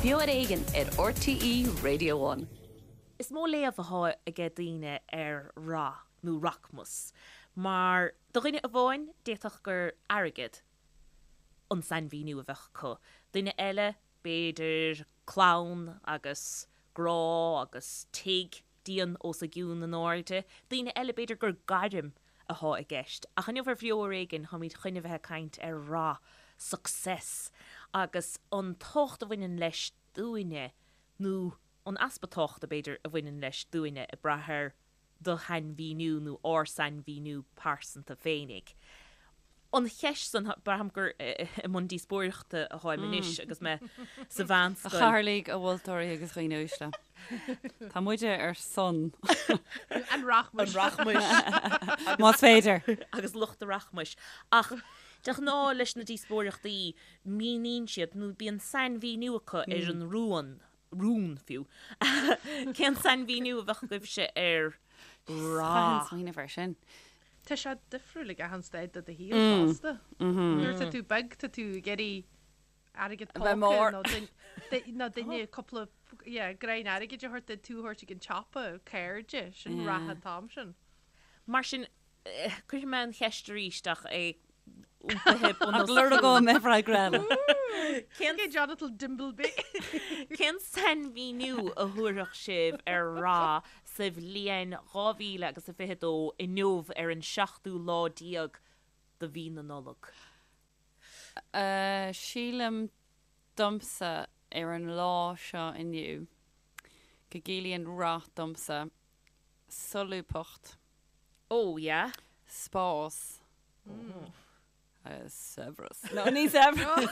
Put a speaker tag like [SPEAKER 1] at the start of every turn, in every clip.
[SPEAKER 1] Beo ar Éigean ar RTÉ Radio One.
[SPEAKER 2] Is mó léamh athá aige daoine ar rath nó rachmas, mar do dhuine amháin d'fhéadfadh gur airgead an sainmhíniú a bheadh acu, duine eile b'fhéidir clann agus grá agus tigh dian os a gcionn in airde, daoine eile b'fhéidir gur gairm athá i gceist. Ach inniu ar Bheo Ar Éigean táimid chun a bheith ag caint ar rath, success, agus an tábhacht a bhaineann leis dúinne, nó an easpa tábhachta b'fhéidir a bhaineann leis dúinne, ag brath ar do shainmhíniú nó ár sainmhíniú pearsanta féinig. An cheist san, braithim gur i mbun díospóireachta atáim anois agus mé sa
[SPEAKER 3] A
[SPEAKER 2] mheánscoil.
[SPEAKER 3] chathaoirligh, a mholtóirí agus a dhaoine uaisle. Tá muide ar son.
[SPEAKER 4] An rachmais.
[SPEAKER 2] An rachmais.
[SPEAKER 3] Más féidir.
[SPEAKER 2] Agus lucht an rachmais. Ach de ghnáth leis na díospóireachtaí, míníonn siad nó bíonn sainmhíniú acu ar an rún rún fiú. Cén sainmhíniú a bheadh agaibhse ar
[SPEAKER 3] Chaithfinn
[SPEAKER 2] rath?
[SPEAKER 3] smaoineamh air sin.
[SPEAKER 4] Tá sé difriúil ag achan staid de do shaol fosta. Nuair atá tú beag tá tú ag iarraidh airgead
[SPEAKER 3] A bheith
[SPEAKER 4] póca
[SPEAKER 3] mór.
[SPEAKER 4] nó nó duine cúpla yeah, greim airgid a thabhairt duit tú a thabhairt ag an tsiopa, cairde, sin rath an t-am sin.
[SPEAKER 2] Mar sin, Cuirfidh mé an cheist arís ach é iompaithe bun
[SPEAKER 3] Ach
[SPEAKER 2] os
[SPEAKER 3] lorgóidh mé freagra eile.
[SPEAKER 2] Cén
[SPEAKER 4] Okay, Jonathan Dimbleby.
[SPEAKER 2] Cén sainmhíniú a thabharfadh sibh ar rath sa bhliain 2022 inniu ar an seachtú lá déag de mhí na Nollag?
[SPEAKER 3] Sílim domsa ar an lá seo inniu go gciallaíonn rath domsa solúbthacht.
[SPEAKER 2] Oh yeah.
[SPEAKER 3] Spás. Saibhreas. No, ní saibhreas.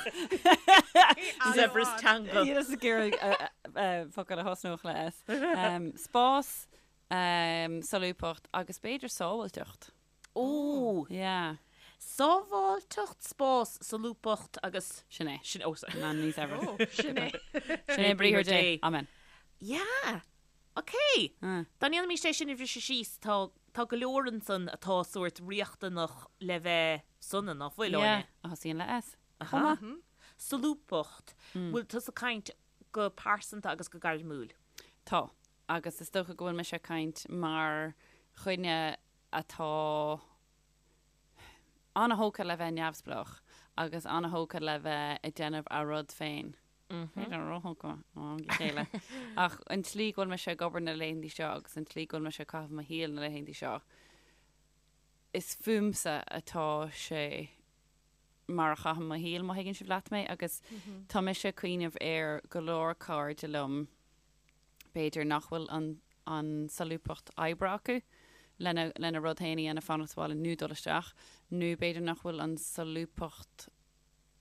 [SPEAKER 2] Saibhreas teanga.
[SPEAKER 3] Níl ag iarraidh focal a thosnódh le S. Spás, solúbthacht agus b'fhéidir sábháilteacht.
[SPEAKER 2] Ó!
[SPEAKER 3] Yeah.
[SPEAKER 2] Sábháilteacht, spás, solúbthacht agus.
[SPEAKER 3] Sin é.
[SPEAKER 2] Sin, oh sorry.
[SPEAKER 3] No, ní saibhreas.
[SPEAKER 4] Oh, sin é.
[SPEAKER 3] Sin é briathar Dé. Amen.
[SPEAKER 2] Yeah. Ok! Dá ndéanfaimis é sin a bhriseadh síos, tá, tá go leor ansan atá sórt riachtanach le bheith sona, ná fuil,
[SPEAKER 3] Yeah,
[SPEAKER 2] Áine?
[SPEAKER 3] a thosaíonn le S. Chomh maith.
[SPEAKER 2] Solúbthacht. Bhfuil tusa ag caint go pearsanta agus go gairmiúil?
[SPEAKER 3] Tá. Agus is dócha go bhfuil mise ag caint mar dhuine atá an-thógtha le bheith neamhspleách agus an-thógtha le bheith ag déanamh a rud féin. B'fhéidir róthógtha ó am go chéile. Ach an tslí go bhfuil mise ag obair na laethanta seo agus an tslí go bhfuil mise ag caitheamh mo shaoil na laethanta seo, is fúmsa atá sé mar a chaithim mo shaol, má thuigeann sibh leat mé. Agus tá mise ag cuimhneamh ar go leor cairde liom, b'fhéidir nach bhfuil an an solúbthacht oibre acu lena lena rud féin a dhéanamh, fanacht sa bhaile nó dul isteach, nó b'fhéidir nach bhfuil an solúbthacht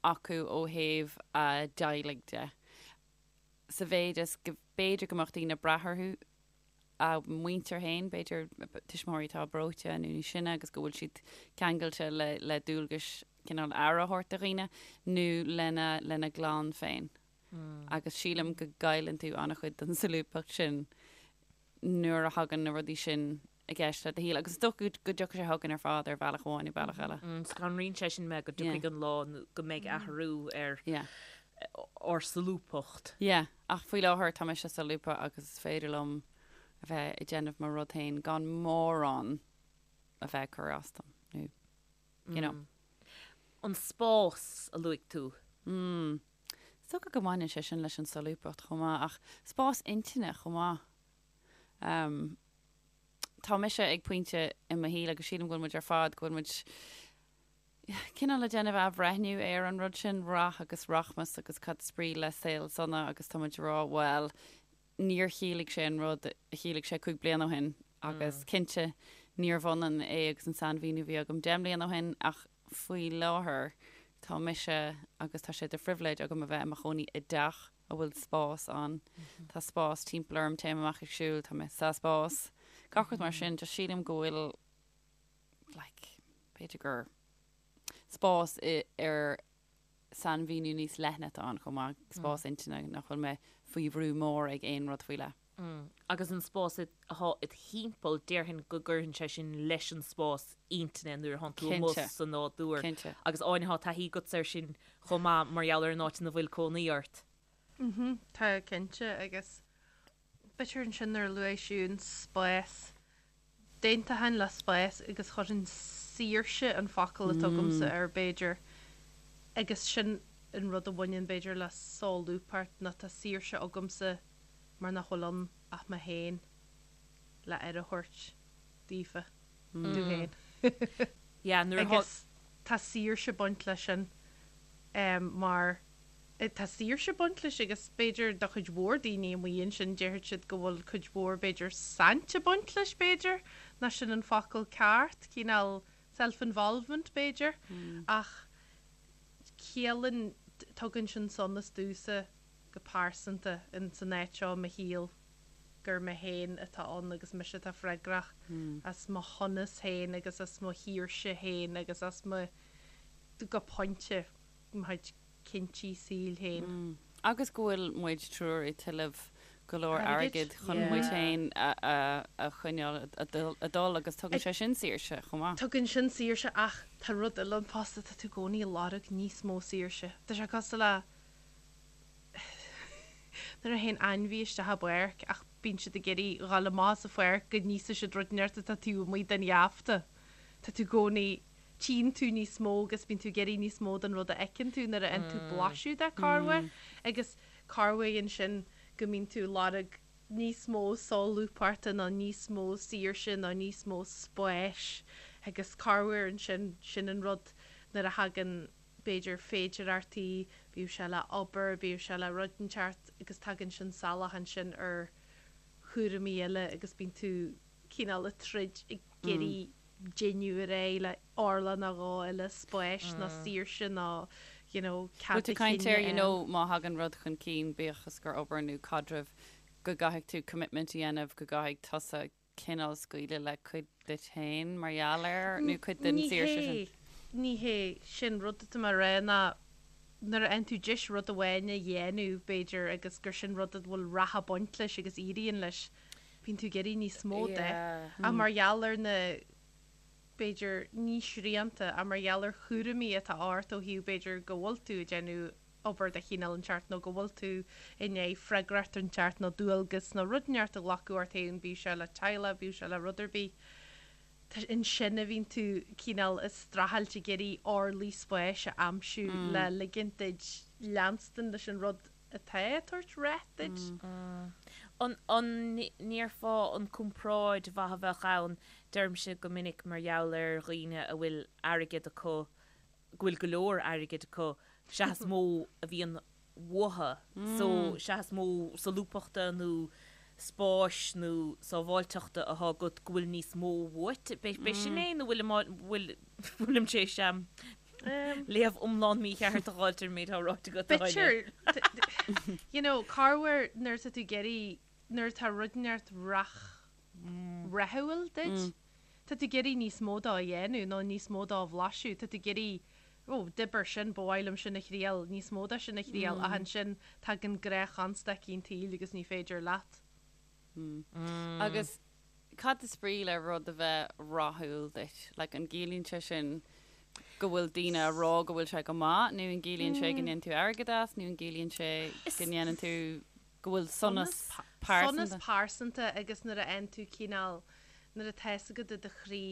[SPEAKER 3] acu ó thaobh a dteaghlaigh de, sa mhéid is go b'fhéidir go mbeadh daoine ag brath orthu, a muintir féin, b'fhéidir tuismitheoirí atá breoite nó níos sine agus go bhfuil siad ceangailte le, le dualgais cineál aire a thabhairt do dhaoine, nó lena, lena gclann féin. Agus sílim go gcailleann tú an-chuid den solúbthacht sin nuair a thagann na rudaí sin i gceist le do shaol. Agus is dócha go dtiocfaidh sé chugainn ar fad ar bhealach amháin nó bealach eile.
[SPEAKER 2] Scanraíonn sé sin mé go dtiocfaidh an lá go mbeidh athrú ar ár solúbthacht.
[SPEAKER 3] Yeah, ach faoi láthair tá mise solúbtha agus is féidir liom a bheith ag déanamh mo rud féin gan mórán a bheith ag cur as dom, nó you know.
[SPEAKER 2] An spás a luaigh tú.
[SPEAKER 3] Mm. Is dócha go mbaineann sé sin leis an solúbthacht chomh maith, ach spás intinne chomh maith. Tá mise ag pointe i mo shaol, agus sílim go bhfuil muid ar fad, go bhfuil muid cineál ag déanamh athbhreithniú ar an rud sin, rath agus rachmas agus cad is brí le saol sona agus tá muid ag rá, bhuel, níor chiallaigh sé an rud a chiallaigh sé 5 bliana ó shin agus cinnte níorbh ionann é agus an sainmhíniú a bhí agam 10 mbliana ó shin ach faoi láthair tá mise agus tá sé de phribhléid agam a bheith i mo chónaí i dteach a bhfuil spás ann. Tá spás timpeall orm, téim amach ag siúl, tá mé sa spás, gach rud mar sin. Just sílim go bhfuil like b'fhéidir gur spás ar sainmhíniú níos leithne atá ann chomh maith, spás intinne nach bhfuil mé faoi bhrú mór ag aon rud faoi leith.
[SPEAKER 2] Agus an spás atá id thimpeall, déarfainn go gcuireann sé sin leis an spás intinne nuair atánn tú amuigh sa nádúr.
[SPEAKER 3] Cinnte.
[SPEAKER 2] Agus Áine, tá taithí agatsa air sin chomh maith mar gheall ar an áit ina bhfuil cónaí ort.
[SPEAKER 4] Mhm, tá cinnte agus b'fhéidir ansin nuair a luaigh Siún spás, d'aontóinn le spás agus chuirfinn saoirse an focal atá agamsa air b'fhéidir agus sin an rud a bhaineann b'fhéidir le solúbthacht nó tá saoirse agamsa mar nach bhfuil ann ach mé féin le aire a thabhairt daofa, domh féin.
[SPEAKER 2] Yeah, nuair atá.
[SPEAKER 4] Agus tá saoirse ag baint leis sin mar tá saoirse ag baint leis agus b'fhéidir do chuid mhór daoine amuigh ansin déarfadh siad go bhfuil cuid mhór b'fhéidir saint ag baint leis b'fhéidir, ná sin an focal ceart, cineál self-involvement b'fhéidir ach ciallaíonn, tugann sin sonas domhsa go pearsanta in san áit seo i mo shaol gur mé féin atá ann agus mise atá freagrach as mo shonas féin agus as mo shaoirse féin agus as mo, go pointe, mo chuid cinntí saoil féin.
[SPEAKER 3] Agus go bhfuil muid triúr ag tuilleamh go leor airgid chun muid féin a choinneáil ag dul agus tugann sé sin saoirse chomh maith.
[SPEAKER 4] Tugann sin saoirse ach tá rud eile ann fosta, tá tú i gcónaí ag lorg níos mó saoirse. Tá sé cosúil le nuair a théann ainmhí isteach i bpáirc ach bíonn siad ag iarraidh dhul amach as an pháirc go n-íosfaidh siad rud inteacht atá taobh amuigh den gheafta. Tá tú i gcónaí tchíonn tú níos mó agus bíonn tú ag iarraidh níos mó den rud a fheiceann tú nuair a fhaigheann tú blaiseadh de corruair agus corruair ansin go mbíonn tú ag lorg níos mó solúbthachta nó níos mó saoirse nó níos mó spáis agus corruair ansin sin an rud nuair a thagann b'fhéidir féidireachtaí, bíodh sé le obair, bíodh sé le rud inteacht agus tagann sin salach ansin ar chúraimí eile agus bíonn tú cineál ag troid ag iarraidh déanamh ar aghaidh le orlach nó dhó eile spáis nó saoirse nó you know
[SPEAKER 3] cead Bhfuil tú ag caint ar you know má thagann rud chun cinn, bíodh is gur obair nó caidreamh, go gcaithfidh tú commitment a dhéanamh, go gcaithfidh tusa cineál scaoileadh le cuid duit féin mar gheall air nó cuid den saoirse sin?
[SPEAKER 4] Ní hé, ní hé sin rud atá mé a rá ná nuair a fhaigheann tú deis rud amháin a dhéanamh b'fhéidir agus gur sin rud a bhfuil rath ag baint leis agus éiríonn leis, bíonn tú ag iarraidh níos mó de. Ach mar gheall ar na, b'fhéidir, ní srianta, ach mar gheall ar chúraimí atá ort ó thaobh b'fhéidir go bhfuil tú ag déanamh obair de chineál inteacht nó go bhfuil tú i ndiaidh freagracht inteacht nó dualgas nó rud inteacht a ghlacadh ort féin, bíodh sé le teaghlach, bíodh sé le rud ar bith, tá, ansin a bhíonn tú cineál ag streachailt ag iarraidh orlaí spáis a aimsiú le ligint duit leanstan leis an rud atá ag tabhairt rath duit.
[SPEAKER 2] An ndéarfá an comparáid mhaith a bheadh ann, deirimse go minic mar gheall ar dhaoine a bhfuil airgead acu, go bhfuil go leor airgid acu, sea is mó a bhíonn uathu, so sea is mó solúbthachta nó spáis nó sábháilteachta atá agat go bhfuil níos mó uait. B'é sin é nó bhfuil, bhfuilim tar éis léamh iomlán mícheart a dh'fháilt ar an méid atá ráite agat, a Áine?
[SPEAKER 4] B'fhéidir, you know, corruair nuair atá tú ag iarraidh, nuair atá rud inteacht rath, rathúil duit, tá tú ag iarraidh níos mó dó a dhéanamh nó níos mó dó a bhlaiseadh, tá tú ag iarraidh, oh, d'oibir sin, ba mhaith liom sin a thriail, níos mó de sin a thriail, ach ansin tagann gnáthchonstaicí an tsaoil agus ní féidir leat.
[SPEAKER 3] Agus cad is brí le rud a bheith rathúil duit? Like, an gciallaíonn sé sin go bhfuil daoine a rá go bhfuil sé go maith nó an gciallaíonn sé go ndéanann tú airgead as nó an gciallaíonn sé go ndéanann tú go bhfuil sonas
[SPEAKER 4] pearsanta? Sonas pearsanta agus nuair a fhaigheann tú cineál, nuair atá fhios agat i do chroí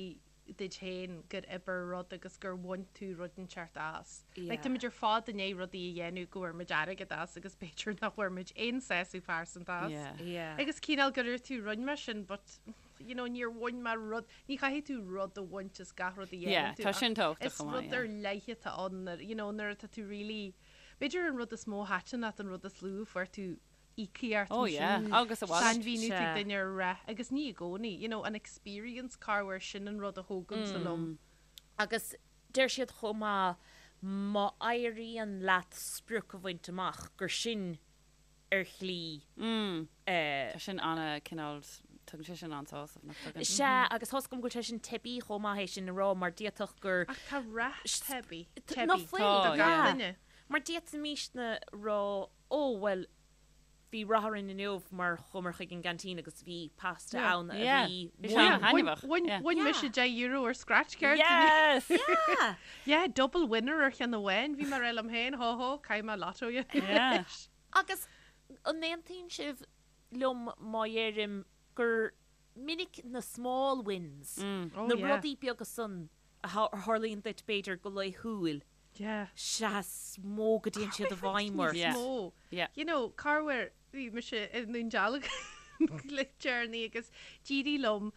[SPEAKER 4] duit féin gur oibir rud agus gur bhain tú rud inteacht as. Like, táimid ar fad i ndiaidh rudaí a dhéanamh go bhfuair muid airgead as agus b'fhéidir nach bhfuair muid aon sásamh pearsanta as.
[SPEAKER 2] Yeah.
[SPEAKER 4] Agus cineál gur dúirt tú rinne mé sin but you know níor bhain mé rud, ní chaithfidh tú rud a bhaint as gach rud a dhéanann
[SPEAKER 3] Yeah,
[SPEAKER 4] tú
[SPEAKER 3] tá
[SPEAKER 4] ach
[SPEAKER 3] sin tábhachtach
[SPEAKER 4] is
[SPEAKER 3] chomh maith,
[SPEAKER 4] rud
[SPEAKER 3] yeah.
[SPEAKER 4] ar leith atá ann nuair, you know, nuair atá tú really, b'fhéidir an rud is mó a thaitin leat an rud is lú a fuair tú íocaíocht
[SPEAKER 3] Oh yeah, agus a mhalairt.
[SPEAKER 4] Sainmhíniú ag duine ar rath agus ní i gcónaí, you know, an experience corruair sin an rud a thógaimse liom.
[SPEAKER 2] Agus deir siad chomh maith má éiríonn leat sprioc a bhaint amach gur sin ar shlí
[SPEAKER 3] eh. Tá sin ana cineál, tugann sé sin an-sásamh, nach
[SPEAKER 2] dtugann? Sea, agus tá's agam go bhfuil sé sin teibí chomh maith é sin a rá mar d'fhéadfadh gur.
[SPEAKER 4] Ach tá rath teibí,
[SPEAKER 2] teibí do
[SPEAKER 3] Tá,
[SPEAKER 4] gach
[SPEAKER 3] yeah.
[SPEAKER 4] duine.
[SPEAKER 2] Mar d'fhéadfaimisne rá Ó, bhuel, bhí rath orainn inniu mar chuamar chuig an gceaintín agus bhí pasta ann a bhí
[SPEAKER 3] Bhí sé an-thaitneamhach.
[SPEAKER 4] Bhain mise €10 ar scratch card
[SPEAKER 3] inniu. Yes!
[SPEAKER 2] Yeah!
[SPEAKER 4] Yeah, double winner ar cheann amháin. Bhí mé ag rá liom féin, hó hó, caithfidh mé lotto a dhéanamh
[SPEAKER 3] Yeah.
[SPEAKER 4] anois.
[SPEAKER 2] Agus an aontaíonn sibh liom má dheirim gur minic na small wins, na rudaí beaga san a tharlaíonn duit b'fhéidir go laethúil, sea is mó go dtéann siad i bhfeidhm ort.
[SPEAKER 4] Níos mó. You know, corruair bhí mise i nDún Dealgan le deireanaí agus d'éirigh liom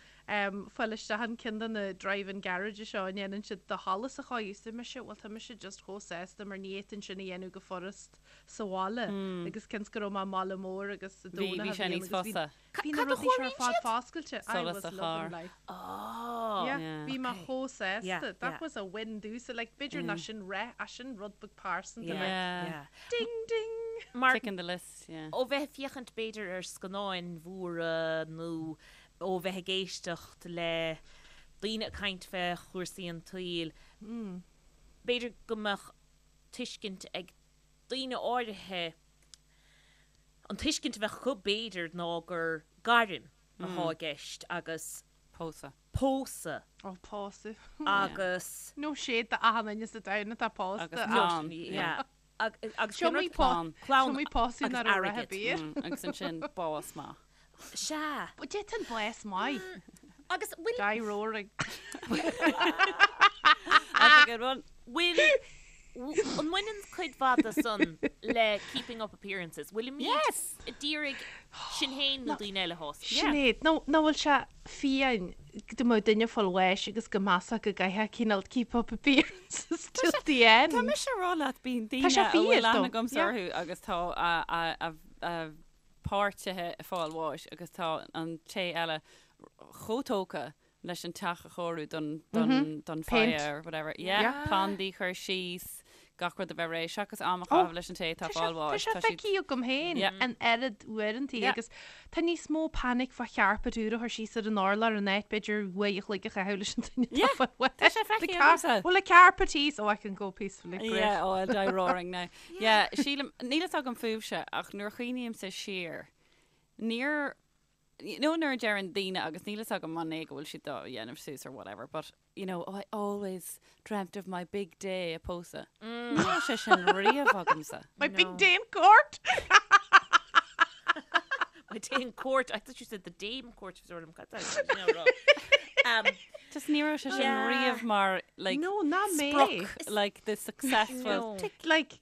[SPEAKER 4] fáil isteach in ceann de na drive-in garage seo a ndéanann siad do sholas a chóiriú. Is mise, bhuel tá mise just chomh sásta mar ní fhéadfainn sin a dhéanamh go furast sa bhaile agus cionn 's go raibh mé i mbaile mór agus sa
[SPEAKER 3] Bhí,
[SPEAKER 4] Domhnach
[SPEAKER 3] bhí
[SPEAKER 4] a
[SPEAKER 3] sé
[SPEAKER 4] bhí ann
[SPEAKER 3] níos
[SPEAKER 4] agus bhí
[SPEAKER 3] fusa.
[SPEAKER 4] Bhí na
[SPEAKER 2] Cad a
[SPEAKER 4] rudaí seo ar
[SPEAKER 2] chóiríonn
[SPEAKER 4] fad
[SPEAKER 2] siad?
[SPEAKER 4] foscailte. I
[SPEAKER 3] Solas
[SPEAKER 4] was
[SPEAKER 3] sa
[SPEAKER 4] loving
[SPEAKER 3] charr.
[SPEAKER 4] life.
[SPEAKER 2] Oh.
[SPEAKER 4] Yeah,
[SPEAKER 3] Yeah.
[SPEAKER 4] bhí mé
[SPEAKER 2] Okay.
[SPEAKER 4] chomh sásta.
[SPEAKER 2] Yeah,
[SPEAKER 4] That
[SPEAKER 2] yeah.
[SPEAKER 4] was a win domhsa. Like, b'fhéidir nach sin rath, ach sin rud beag pearsanta.
[SPEAKER 2] Yeah,
[SPEAKER 4] Like,
[SPEAKER 3] Yeah.
[SPEAKER 2] yeah.
[SPEAKER 4] ding, ding!
[SPEAKER 2] Mar
[SPEAKER 3] Ticking the list, yeah.
[SPEAKER 2] ó bheith ag féachaint b'fhéidir ar scannáin mhóra nó ó bheith ag éisteacht le daoine ag caint fé chúrsaí an tsaoil, b'fhéidir go mbeadh tuiscint ag daoine áirithe, an tuiscint a bheadh acu b'fhéidir ná gur gairm atá i gceist agus
[SPEAKER 3] Pósadh.
[SPEAKER 2] pósadh
[SPEAKER 4] Ó, pósadh.
[SPEAKER 2] agus.
[SPEAKER 4] No shade do achan duine sa domhan atá pósta.
[SPEAKER 3] Agus
[SPEAKER 4] ach-
[SPEAKER 3] clann.
[SPEAKER 2] Yeah. Agus
[SPEAKER 4] Seo
[SPEAKER 2] cén
[SPEAKER 4] mé
[SPEAKER 2] rud?
[SPEAKER 3] Clann.
[SPEAKER 2] Clann
[SPEAKER 4] Seo mé pósadh
[SPEAKER 2] agus
[SPEAKER 4] nach raibh rath
[SPEAKER 2] airgead.
[SPEAKER 4] ar bith.
[SPEAKER 3] Agus ansin bás maith.
[SPEAKER 2] Sea.
[SPEAKER 4] But d'fhéadfainn bás maith.
[SPEAKER 2] Agus bhfuil.
[SPEAKER 4] Die roaring.
[SPEAKER 3] That's a good one.
[SPEAKER 2] Bhfuil, an mbaineann cuid mhaith de san le keeping up appearances? Bhfuilimid
[SPEAKER 3] Yes!
[SPEAKER 2] ag iarraidh sinn féin nó daoine eile a shásamh?
[SPEAKER 4] Sinéad, nó nach bhfuil sé fiáin go mbeadh duine ag fáil bháis agus go measfá go gcaithfeá cineál keep up appearances till the end.
[SPEAKER 3] Tá mise ag rá leat, bíonn daoine
[SPEAKER 4] sé
[SPEAKER 3] a bhfuil
[SPEAKER 4] fíor,
[SPEAKER 3] aithne
[SPEAKER 4] though.
[SPEAKER 3] agamsa
[SPEAKER 4] Yeah.
[SPEAKER 3] orthu agus tá a, a, a, a páirtithe ag fáil bháis agus tá an té eile chomh tógtha leis an teach a chóiriú don, don, don
[SPEAKER 4] Paint.
[SPEAKER 3] fire or whatever. Yeah,
[SPEAKER 4] Yeah.
[SPEAKER 3] plandaí a chur síos, gach rud a bheith réidh, seachas am a
[SPEAKER 4] Oh,
[SPEAKER 3] chaitheamh leis an té atá
[SPEAKER 4] Tá sé
[SPEAKER 3] fáil
[SPEAKER 4] tá
[SPEAKER 3] bháis.
[SPEAKER 4] sé
[SPEAKER 3] Tá siad
[SPEAKER 4] feicthe agam féin
[SPEAKER 3] Yeah.
[SPEAKER 4] an oiread uaireanta
[SPEAKER 3] Yeah.
[SPEAKER 4] agus tá níos mó panic fá charpet úr a chur síos ar an urlár in áit b'fhéidir uair a chloig a chaitheamh leis an duine atá
[SPEAKER 3] Yeah,
[SPEAKER 4] fáil bháis.
[SPEAKER 3] tá sé
[SPEAKER 4] The
[SPEAKER 3] feicthe
[SPEAKER 4] car-
[SPEAKER 3] agamsa.
[SPEAKER 4] Well, a carpet thíos, oh I can go peacefully, great.
[SPEAKER 3] Yeah, oh, I'll die roaring now. Yeah, sílim, níl fhios agam fúibhse, ach nuair a chuimhnímse siar, níor, you know nuair a deireann daoine, agus níl fhios agam an é go bhfuil siad á dhéanamh suas or whatever, but, you know, oh, I always dreamt of my big day ag pósadh. Ní raibh sé sin riamh agamsa.
[SPEAKER 4] My big day in court!
[SPEAKER 2] My day in court, I thought you said the dame court, sort of, um,
[SPEAKER 3] Just ní raibh sé sin
[SPEAKER 2] Yeah.
[SPEAKER 3] riamh mar, like,
[SPEAKER 4] No, ná mé.
[SPEAKER 3] sprioc, like the successful
[SPEAKER 2] No.
[SPEAKER 4] Like,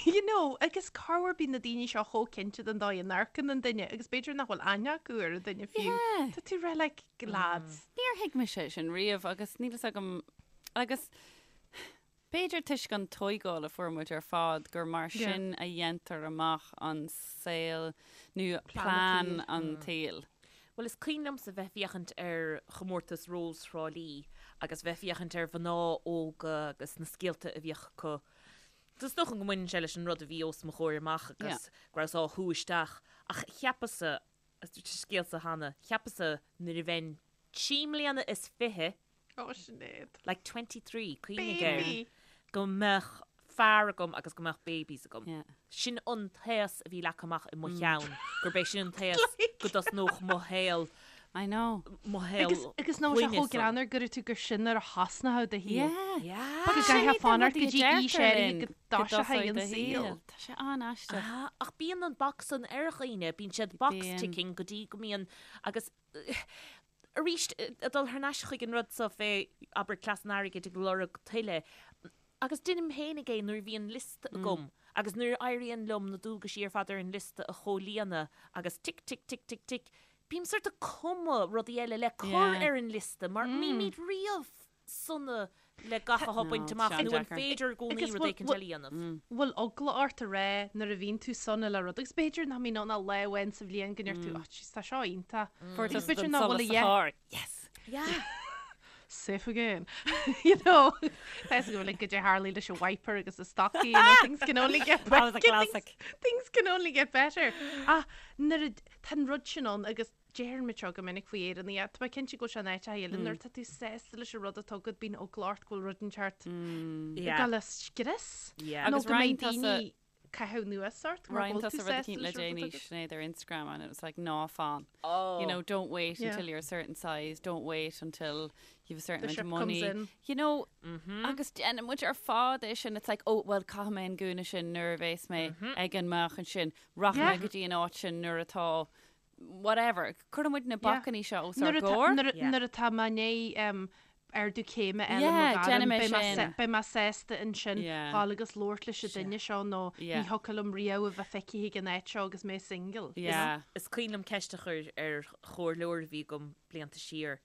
[SPEAKER 4] you know, agus corruair bíonn na daoine seo chomh cinnte den dóigh a n-amharcann an duine agus b'fhéidir nach bhfuil aithne acu ar an duine fiú.
[SPEAKER 3] Yeah.
[SPEAKER 4] Tá tú rá like, lads.
[SPEAKER 3] Níor thuig mise sin riamh agus níl fhios agam agus b'fhéidir toisc an tóigáil a fuair muid ar fad gur mar
[SPEAKER 4] Yeah.
[SPEAKER 3] sin a dhéantar amach an saol nó
[SPEAKER 4] Plean
[SPEAKER 3] plean
[SPEAKER 4] an
[SPEAKER 3] an tsaoil.
[SPEAKER 2] Bhuel, is cuimhin liomsa bheith féachaint ar chomórtas Rós Thrá Lí agus bheith féachaint ar mhná óga agus na scéalta a bhíodh acu. Is dócha go mbaineann sé leis an rud a bhí os mo chomhair amach agus go rabhas á shú isteach ach cheapas-sa, agus dúirt an scéal seo cheana, cheapas-sa nuair a bheinn trí mbliana is fiche,
[SPEAKER 4] Ó, Sinéad.
[SPEAKER 2] like 23, cuimhnigh air,
[SPEAKER 4] Baby!
[SPEAKER 2] go mbeadh fear agam agus go mbeadh babies agam.
[SPEAKER 3] Yeah.
[SPEAKER 2] Sin an t-aos a bhí leagtha amach i mo cheann, gurb é sin an t-aos go dtosnódh mo shaol,
[SPEAKER 3] I know.
[SPEAKER 2] mo shaol
[SPEAKER 4] Agus, agus nach bhfuil sé
[SPEAKER 2] clainne
[SPEAKER 4] chomh
[SPEAKER 2] san.
[SPEAKER 4] greannmhar go raibh tú gur sin nuair a thosnódh do shaol.
[SPEAKER 3] Yeah.
[SPEAKER 2] Yeah.
[SPEAKER 4] Go
[SPEAKER 3] Sin
[SPEAKER 4] gcaithfeá
[SPEAKER 3] iad na
[SPEAKER 4] fanacht go
[SPEAKER 3] rudaí a
[SPEAKER 4] dtí aois
[SPEAKER 3] deirtear
[SPEAKER 4] áirithe
[SPEAKER 3] linn
[SPEAKER 4] go
[SPEAKER 3] go
[SPEAKER 4] dtoiseoidh
[SPEAKER 3] dtosóidh
[SPEAKER 4] an
[SPEAKER 3] do
[SPEAKER 4] saol.
[SPEAKER 3] shaol. Tá sé an-aisteach.
[SPEAKER 2] Ah, ach bíonn an box san ar dhaoine, bíonn siad box
[SPEAKER 3] Bíonn.
[SPEAKER 2] ticking go dtí go mbíonn, agus arís, ag dul thar n-ais chuig an rud so fé, abair, cleas an airgid ag lorg tuilleadh, agus deinim féinig é nuair a bhíonn liosta agam agus nuair a éiríonn liom na dualgaisí ar fad ar an liosta a chomhlíonadh agus tic tic tic tic tic, bím sort ag cumadh rudaí eile le cur ar an liosta mar nílimid riamh sona le gach atá bainte amach nó an féidir i gcónaí rud éicint eile a dhéanamh.
[SPEAKER 4] Bhfuil eagla ort a rá nuair a bhíonn tú sona le rud agus b'fhéidir nach mbíonn ann ach lá amháin sa bhliain go ndeir tú, oh jeez, tá seo iontach. Agus b'fhéidir nach bhfuil a
[SPEAKER 3] dhath. Yes!
[SPEAKER 2] Yeah.
[SPEAKER 4] Safe again. You know, tá go bhfuil go dé Harley leis an wiper agus a stocaí, you know, things can only get
[SPEAKER 3] That was a
[SPEAKER 4] better.
[SPEAKER 3] classic.
[SPEAKER 4] Things can only get better. Ach nuair a, tá an rud sin ann agus Deireann muid seo go minic faoi Éireannaigh, tá mé cinnte go bhfuil sé in áiteacha eile, nuair atá tú sásta leis an rud atá agat, bíonn eagla ort go bhfuil rud inteacht ag dul a scrios.
[SPEAKER 2] Yeah.
[SPEAKER 4] Nó
[SPEAKER 3] Agus
[SPEAKER 4] go mbeidh
[SPEAKER 3] roinn tusa-
[SPEAKER 4] daoine caitheamh anuas ort mar
[SPEAKER 3] Roinn
[SPEAKER 4] go bhfuil
[SPEAKER 3] tusa
[SPEAKER 4] tú
[SPEAKER 3] rud
[SPEAKER 4] sásta
[SPEAKER 3] eicínt le
[SPEAKER 4] leis an rud
[SPEAKER 3] déanaí
[SPEAKER 4] atá agat.
[SPEAKER 3] Sinéad ar Instagram and it was like ná fan.
[SPEAKER 2] Oh.
[SPEAKER 3] You know, don't wait
[SPEAKER 4] Yeah.
[SPEAKER 3] until you're a certain size, don't wait until you've a certain
[SPEAKER 4] The
[SPEAKER 3] amount
[SPEAKER 4] ship
[SPEAKER 3] of
[SPEAKER 4] comes
[SPEAKER 3] money.
[SPEAKER 4] in.
[SPEAKER 3] You know, agus déanann muid ar fad é sin, it's like, oh, well, caithfidh mé an gúna sin nuair a bheas mé ag an meáchan sin, rachaidh mé
[SPEAKER 4] Yeah.
[SPEAKER 3] go dtí an áit sin nuair atá whatever. Cuireann muid na
[SPEAKER 4] Yeah.
[SPEAKER 3] bacainní seo os ár
[SPEAKER 4] Nuair atá-
[SPEAKER 3] gcomhair.
[SPEAKER 4] nuair a-
[SPEAKER 2] Yeah.
[SPEAKER 4] nuair atá mé i ndiaidh um, ardú céime a fháil i mo
[SPEAKER 3] Yeah,
[SPEAKER 4] ghairm,
[SPEAKER 3] déanfaidh mé
[SPEAKER 4] beidh mé
[SPEAKER 3] sin.
[SPEAKER 4] sa- beidh mé sásta ansin
[SPEAKER 3] Yeah.
[SPEAKER 4] dhul agus labhairt leis an duine seo nó
[SPEAKER 3] Yeah.
[SPEAKER 4] ní thiocfadh liom riamh a bheith feicthe ag an áit seo agus mé single.
[SPEAKER 3] Yeah.
[SPEAKER 2] Is cuimhin liom ceist a chur ar chomhairleoir a bhí agam blianta siar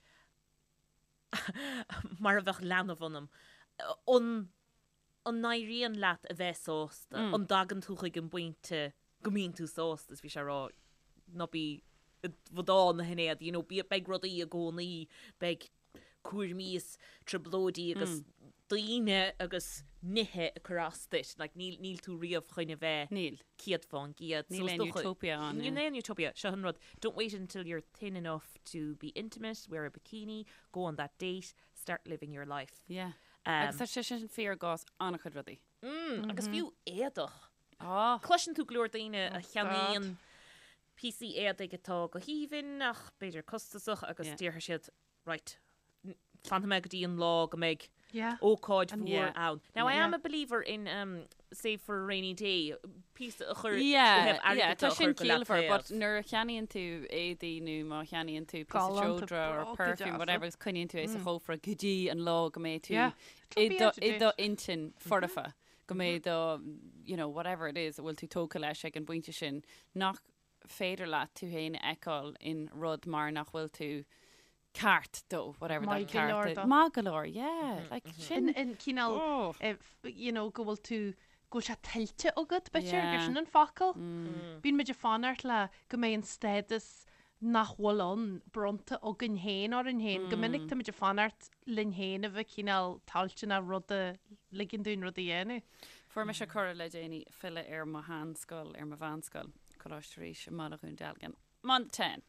[SPEAKER 2] mar a bheadh leanbh ionam. An an n-éiríonn leat a bheith sásta? An dtagann tú chuig an bpointe go mbíonn tú sásta? Is bhí sé ag rá, ná bí i bhfadán a Shinéad, you know, bí, beidh rudaí i gcónaí, beidh cúraimí is trioblóidí agus daoine agus nithe ag cur as duit, like, níl, níl tú riamh chun a bheith
[SPEAKER 3] Níl.
[SPEAKER 2] 100%.
[SPEAKER 3] Níl
[SPEAKER 2] So is
[SPEAKER 3] aon
[SPEAKER 2] dócha-
[SPEAKER 3] utopia ann,
[SPEAKER 2] Níl
[SPEAKER 3] yeah.
[SPEAKER 2] aon utopia. Seo an rud. Don't wait until you're thin enough to be intimate, wear a bikini, go on that date, start living your life.
[SPEAKER 3] Yeah. Agus tá sé sin fíor i gcás an-chuid rudaí.
[SPEAKER 2] Agus fiú éadach.
[SPEAKER 3] Ah.
[SPEAKER 2] Cloiseann tú go leor daoine a cheannaíonn píosaí éadaigh atá go haoibhinn ach b'fhéidir costasach agus déarfaidh siad, right, fanfaidh mé go dtí an lá go mbeidh ócáid mhór ann. Now I am a believer in um, save for a rainy day, píosa a chur ó
[SPEAKER 3] Yeah,
[SPEAKER 2] thaobh
[SPEAKER 3] yeah,
[SPEAKER 2] airgid
[SPEAKER 3] tá
[SPEAKER 2] de a
[SPEAKER 3] sin
[SPEAKER 2] chur go leath
[SPEAKER 3] ciallmhar, but
[SPEAKER 2] taobh.
[SPEAKER 3] nuair a cheannaíonn tú éadaí nó má cheannaíonn tú píosa
[SPEAKER 4] Galánta,
[SPEAKER 3] seodra or
[SPEAKER 4] bróga
[SPEAKER 3] perfume,
[SPEAKER 4] deasa.
[SPEAKER 3] whatever, agus coinníonn tú é sa chófra go dtí an lá go mbeidh tú
[SPEAKER 4] Yeah,
[SPEAKER 3] i
[SPEAKER 4] it'll be
[SPEAKER 3] do,
[SPEAKER 4] out of
[SPEAKER 3] i
[SPEAKER 4] date.
[SPEAKER 3] do intinn foirfe, go mbeidh do, you know, whatever it is a bhfuil tú tógtha leis ag an bpointe sin, nach féidir leat tú féin a fheiceáil in rud mar nach bhfuil tú ceart dó, whatever that
[SPEAKER 4] Maith go leor
[SPEAKER 3] ceart is.
[SPEAKER 4] dó.
[SPEAKER 3] Maith go leor, yeah, like sin.
[SPEAKER 4] In, in cineál,
[SPEAKER 3] Oh.
[SPEAKER 4] eh, f- you know, go bhfuil tú, go bhfuil sé tuillte agat, b'fhéidir, gur
[SPEAKER 3] Yeah.
[SPEAKER 4] sin an focal. Bíonn muid ag fanacht le go mbeidh an stádas nach bhfuil ann bronnta againn féin orainn féin. Go minic tá muid ag fanacht linn féin a bheith cineál toilteanach rud a ligean dúinn rud a dhéanamh.
[SPEAKER 3] Fuair mise cuireadh le déanaí filleadh ar mo sheanscoil, ar mo mheánscoil, Coláiste Rís i mBaile Dhún Dealgan. Month 10.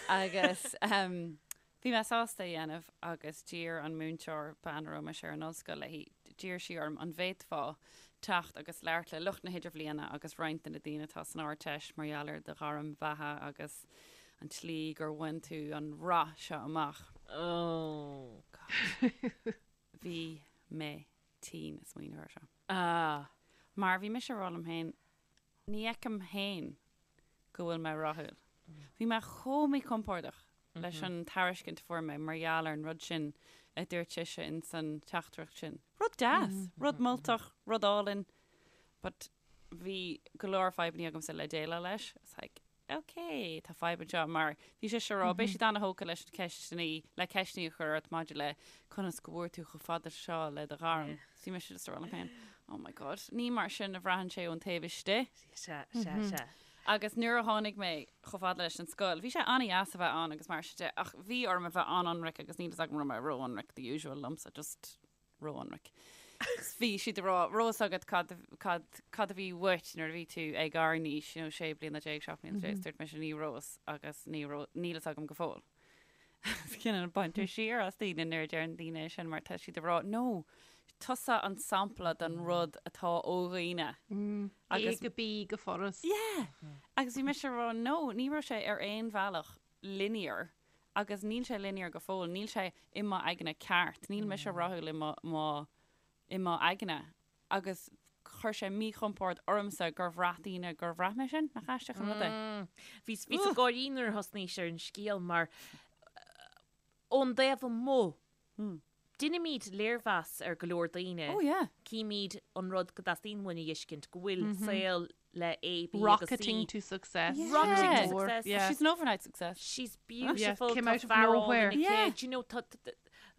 [SPEAKER 3] Agus um, bhí mé sásta a dhéanamh agus d'iarr an múinteoir bean a raibh mise ar an ollscoil léi, d'iarr sí orm an bhféadfá teacht agus labhairt le lucht na hidirbhliana agus roinnt de na daoine atá san Ardteist mar gheall ar do ghairm bheatha agus an tslí gur bhain tú an rath seo amach.
[SPEAKER 2] Oh.
[SPEAKER 3] God. Bhí mé tinn ag smaoineamh air seo.
[SPEAKER 2] Ah.
[SPEAKER 3] Mar bhí mise ag rá liom féin, ní fheicim féin go bhfuil mé rathúil. Bhí mé chomh míchompordach leis an tairiscint a fuair mé mar gheall ar an rud sin a dúirt sise in san teachtaireacht sin. Rud deas, rud moltach, rud álainn, but bhí go leor fadhbanna agamsa le déileáil leis. It's like, ok, tá fadhb anseo mar bhí sise ag rá, beidh siad ana-thógtha leis na ceisteanna, le ceisteanna a chur ort maidir le conas go bhfuair tú chomh fada seo le do ghairm. So bhí mise just ag rá liom féin, oh my god, ní mar sin a bhraitheann sé ón taobh istigh.
[SPEAKER 2] Sea, sea, sea.
[SPEAKER 3] Agus nuair a tháinig mé chomh fada leis an scoil, bhí sé an-dheas a bheith ann agus mar sin de, ach bhí orm a bheith an-ionraic agus níl fhios agam raibh mé ró-ionraic, the usual liomsa, just ró-ionraic. Bhí siad ag rá, raibh fhios agat cad, cad, cad a bhí uait nuair a bhí tú ag ár n-aois, you know, sé bliana déag, 17 bliana, dúirt mise ní raibh fhios agus ní raibh, níl fhios agam go fóill. Cineál baintear siar as daoine nuair a deireann daoine é sin mar tá siad ag rá, no, tusa an sampla den rud atá ó dhaoine.
[SPEAKER 4] Agus A go B go furast.
[SPEAKER 3] Yeah! Agus bhí mise ag rá, no, ní raibh sé ar aon bhealach linear agus níl sé linear go fóill, níl sé i mo aigne ceart, níl mise rathúil i mo, mo, i mo aigne. Agus chuir sé míchompord ormsa gur bhraith daoine gur bhraith mé sin, nach aisteach an rud é?
[SPEAKER 2] Bhíos bhíos ag gáirí nuair a thosnaís ar an scéal mar ón dtaobh amuigh, deinimid léirmheas ar go leor daoine.
[SPEAKER 3] Oh yeah.
[SPEAKER 2] Címid an rud go dteastaíonn uainn a fheiscint, go bhfuil saol le A, B agus C.
[SPEAKER 4] Rocketing to success.
[SPEAKER 3] Yeah.
[SPEAKER 2] Rocketing to
[SPEAKER 4] Mór,
[SPEAKER 2] success.
[SPEAKER 4] yeah.
[SPEAKER 3] She's an overnight success.
[SPEAKER 2] She's beautiful.
[SPEAKER 4] Yeah, came
[SPEAKER 2] tá
[SPEAKER 4] out of
[SPEAKER 2] fear álainn
[SPEAKER 4] nowhere.
[SPEAKER 2] aici.
[SPEAKER 3] Yeah.
[SPEAKER 2] Do you know, tá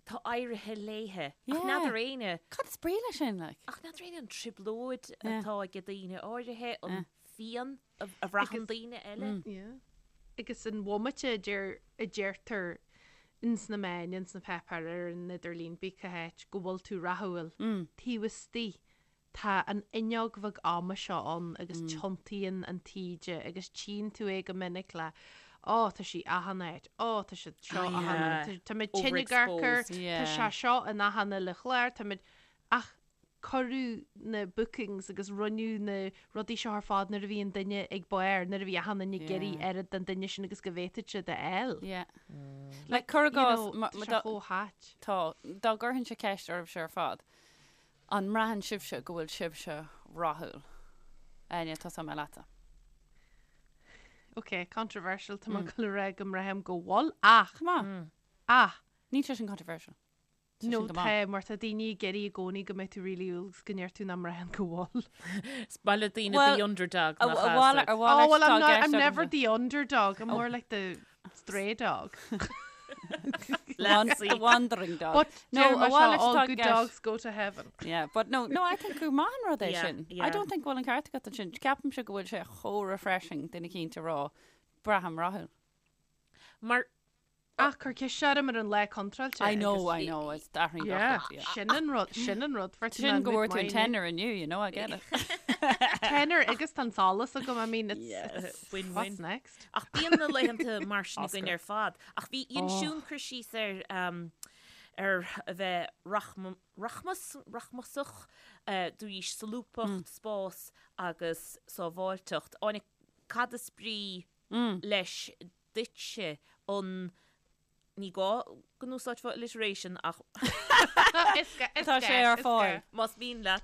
[SPEAKER 2] tá éirithe léithe. Ach
[SPEAKER 3] Yeah.
[SPEAKER 2] n'fheadar éinne,
[SPEAKER 3] Cad is brí leis sin, like?
[SPEAKER 2] ach n'fheadar éinne an trioblóid
[SPEAKER 3] Yeah.
[SPEAKER 2] atá ag daoine áirithe, an phian a a bhraitheann daoine eile.
[SPEAKER 4] Yeah. Agus an bhomaite a deir a deirtear ins na meáin, ins na páipéir, ar an idirlíon, pé cá háit, go bhfuil tú rathúil, taobh istigh Tá an fhuinneog bheag ama seo ann agus tiontaíonn an taoide agus tchíonn tú é go minic le Ó, tá sí achan áit, ó, tá siad seo achan áit, tá muid tinn ag amharc air,
[SPEAKER 2] Overexposed.
[SPEAKER 4] tá sé seo in achan uile chlár, tá muid. Ach cuireadh na bookings agus rinneadh na rudaí seo ar fad nuair a bhí an duine ag barr, nuair a bhí achan duine ag iarraidh oiread den duine sin agus go bhféadfadh siad a fháil.
[SPEAKER 3] Yeah. Like, cuir i gcás,
[SPEAKER 4] Tá sé chomh hait.
[SPEAKER 3] Tá. Dá gcuirfinnse ceist oraibhse ar fad, an mbraitheann sibhse go bhfuil sibhse rathúil? Áine, tosóidh mé leatsa.
[SPEAKER 4] Ok, controversial, tá mé ag dul a rá go mbraithim go bhfuil, ach,
[SPEAKER 3] Go maith.
[SPEAKER 4] ach,
[SPEAKER 3] Níl sé sin controversial. Tá
[SPEAKER 4] No
[SPEAKER 3] sin go maith.
[SPEAKER 4] tá, mar tá daoine ag iarraidh i gcónaí go mbeidh tú really umhal agus go ndeir tú nach mbraitheann go bhfuil.
[SPEAKER 2] Is maith le daoine
[SPEAKER 3] Well,
[SPEAKER 2] the underdog
[SPEAKER 3] a-
[SPEAKER 2] nach
[SPEAKER 3] a
[SPEAKER 2] ea,
[SPEAKER 3] mhal-
[SPEAKER 2] so.
[SPEAKER 3] a
[SPEAKER 4] Oh,
[SPEAKER 3] mhalairt
[SPEAKER 4] well,
[SPEAKER 3] atá
[SPEAKER 4] I'm
[SPEAKER 3] i
[SPEAKER 4] not,
[SPEAKER 3] gceist
[SPEAKER 4] I'm never
[SPEAKER 3] agamsa.
[SPEAKER 4] the underdog, I'm more like the stray dog.
[SPEAKER 2] Lassie.
[SPEAKER 3] The wandering dog.
[SPEAKER 4] But
[SPEAKER 3] No,
[SPEAKER 4] deir
[SPEAKER 3] a
[SPEAKER 4] mar seo,
[SPEAKER 3] mhalairt
[SPEAKER 4] all
[SPEAKER 3] atá i
[SPEAKER 4] good
[SPEAKER 3] gceist.
[SPEAKER 4] dogs go to heaven.
[SPEAKER 3] Yeah, but no, no, I think gur maith an rud é
[SPEAKER 2] Yeah,
[SPEAKER 3] sin. I
[SPEAKER 2] yeah.
[SPEAKER 3] don't think go bhfuil an ceart agat ansin. Ceapaimse go bhfuil sé chomh refreshing duine eicínt a rá, braithim rathúil.
[SPEAKER 2] Mar
[SPEAKER 4] Ach cuir ceist orm ar an lá contráilte.
[SPEAKER 3] I know, I know, it's athraíonn gach rud, yeah.
[SPEAKER 4] Sin an rud, sin an rud. Fuair tú
[SPEAKER 3] Sin go
[SPEAKER 4] an
[SPEAKER 3] bhfuair tú an
[SPEAKER 4] mine.
[SPEAKER 3] tenner inniu, you know, I get it.
[SPEAKER 4] Tenner agus tá an solas agam, I mean, it's,
[SPEAKER 2] Yeah,
[SPEAKER 4] it's
[SPEAKER 2] win-win.
[SPEAKER 4] what's next?
[SPEAKER 2] Ach bíonn na laethanta mar sin againn
[SPEAKER 3] Oscar.
[SPEAKER 2] ar fad. Ach bhí dhein
[SPEAKER 4] Oh.
[SPEAKER 2] Siún cur síos ar um, ar a bheith rachma, rachmas, rachmasach, uh, dúís solúbthacht, spás agus sábháilteacht. Áine, cad is brí leis duitse an Ní gá go n-úsáidfeá alliteration ach
[SPEAKER 3] Tá sé ar fáil.
[SPEAKER 2] más mian leat.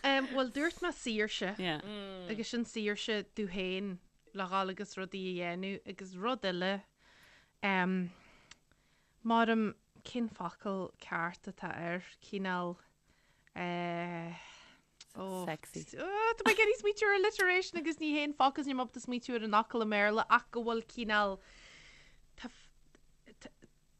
[SPEAKER 4] Bhuel, dúirt mé saoirse.
[SPEAKER 3] Yeah.
[SPEAKER 4] Agus sin saoirse tú féin le dhul agus rudaí a dhéanamh agus rud eile um, maram cén focal ceart atá air, cineál eh, oh,
[SPEAKER 3] Sexy.
[SPEAKER 4] Oh, tá mé ag iarraidh smaoitiú ar alliteration agus ní haon focal níl mé ábalta smaoitiú ar an fhocal i mBéarla ach go bhfuil cineál tá tá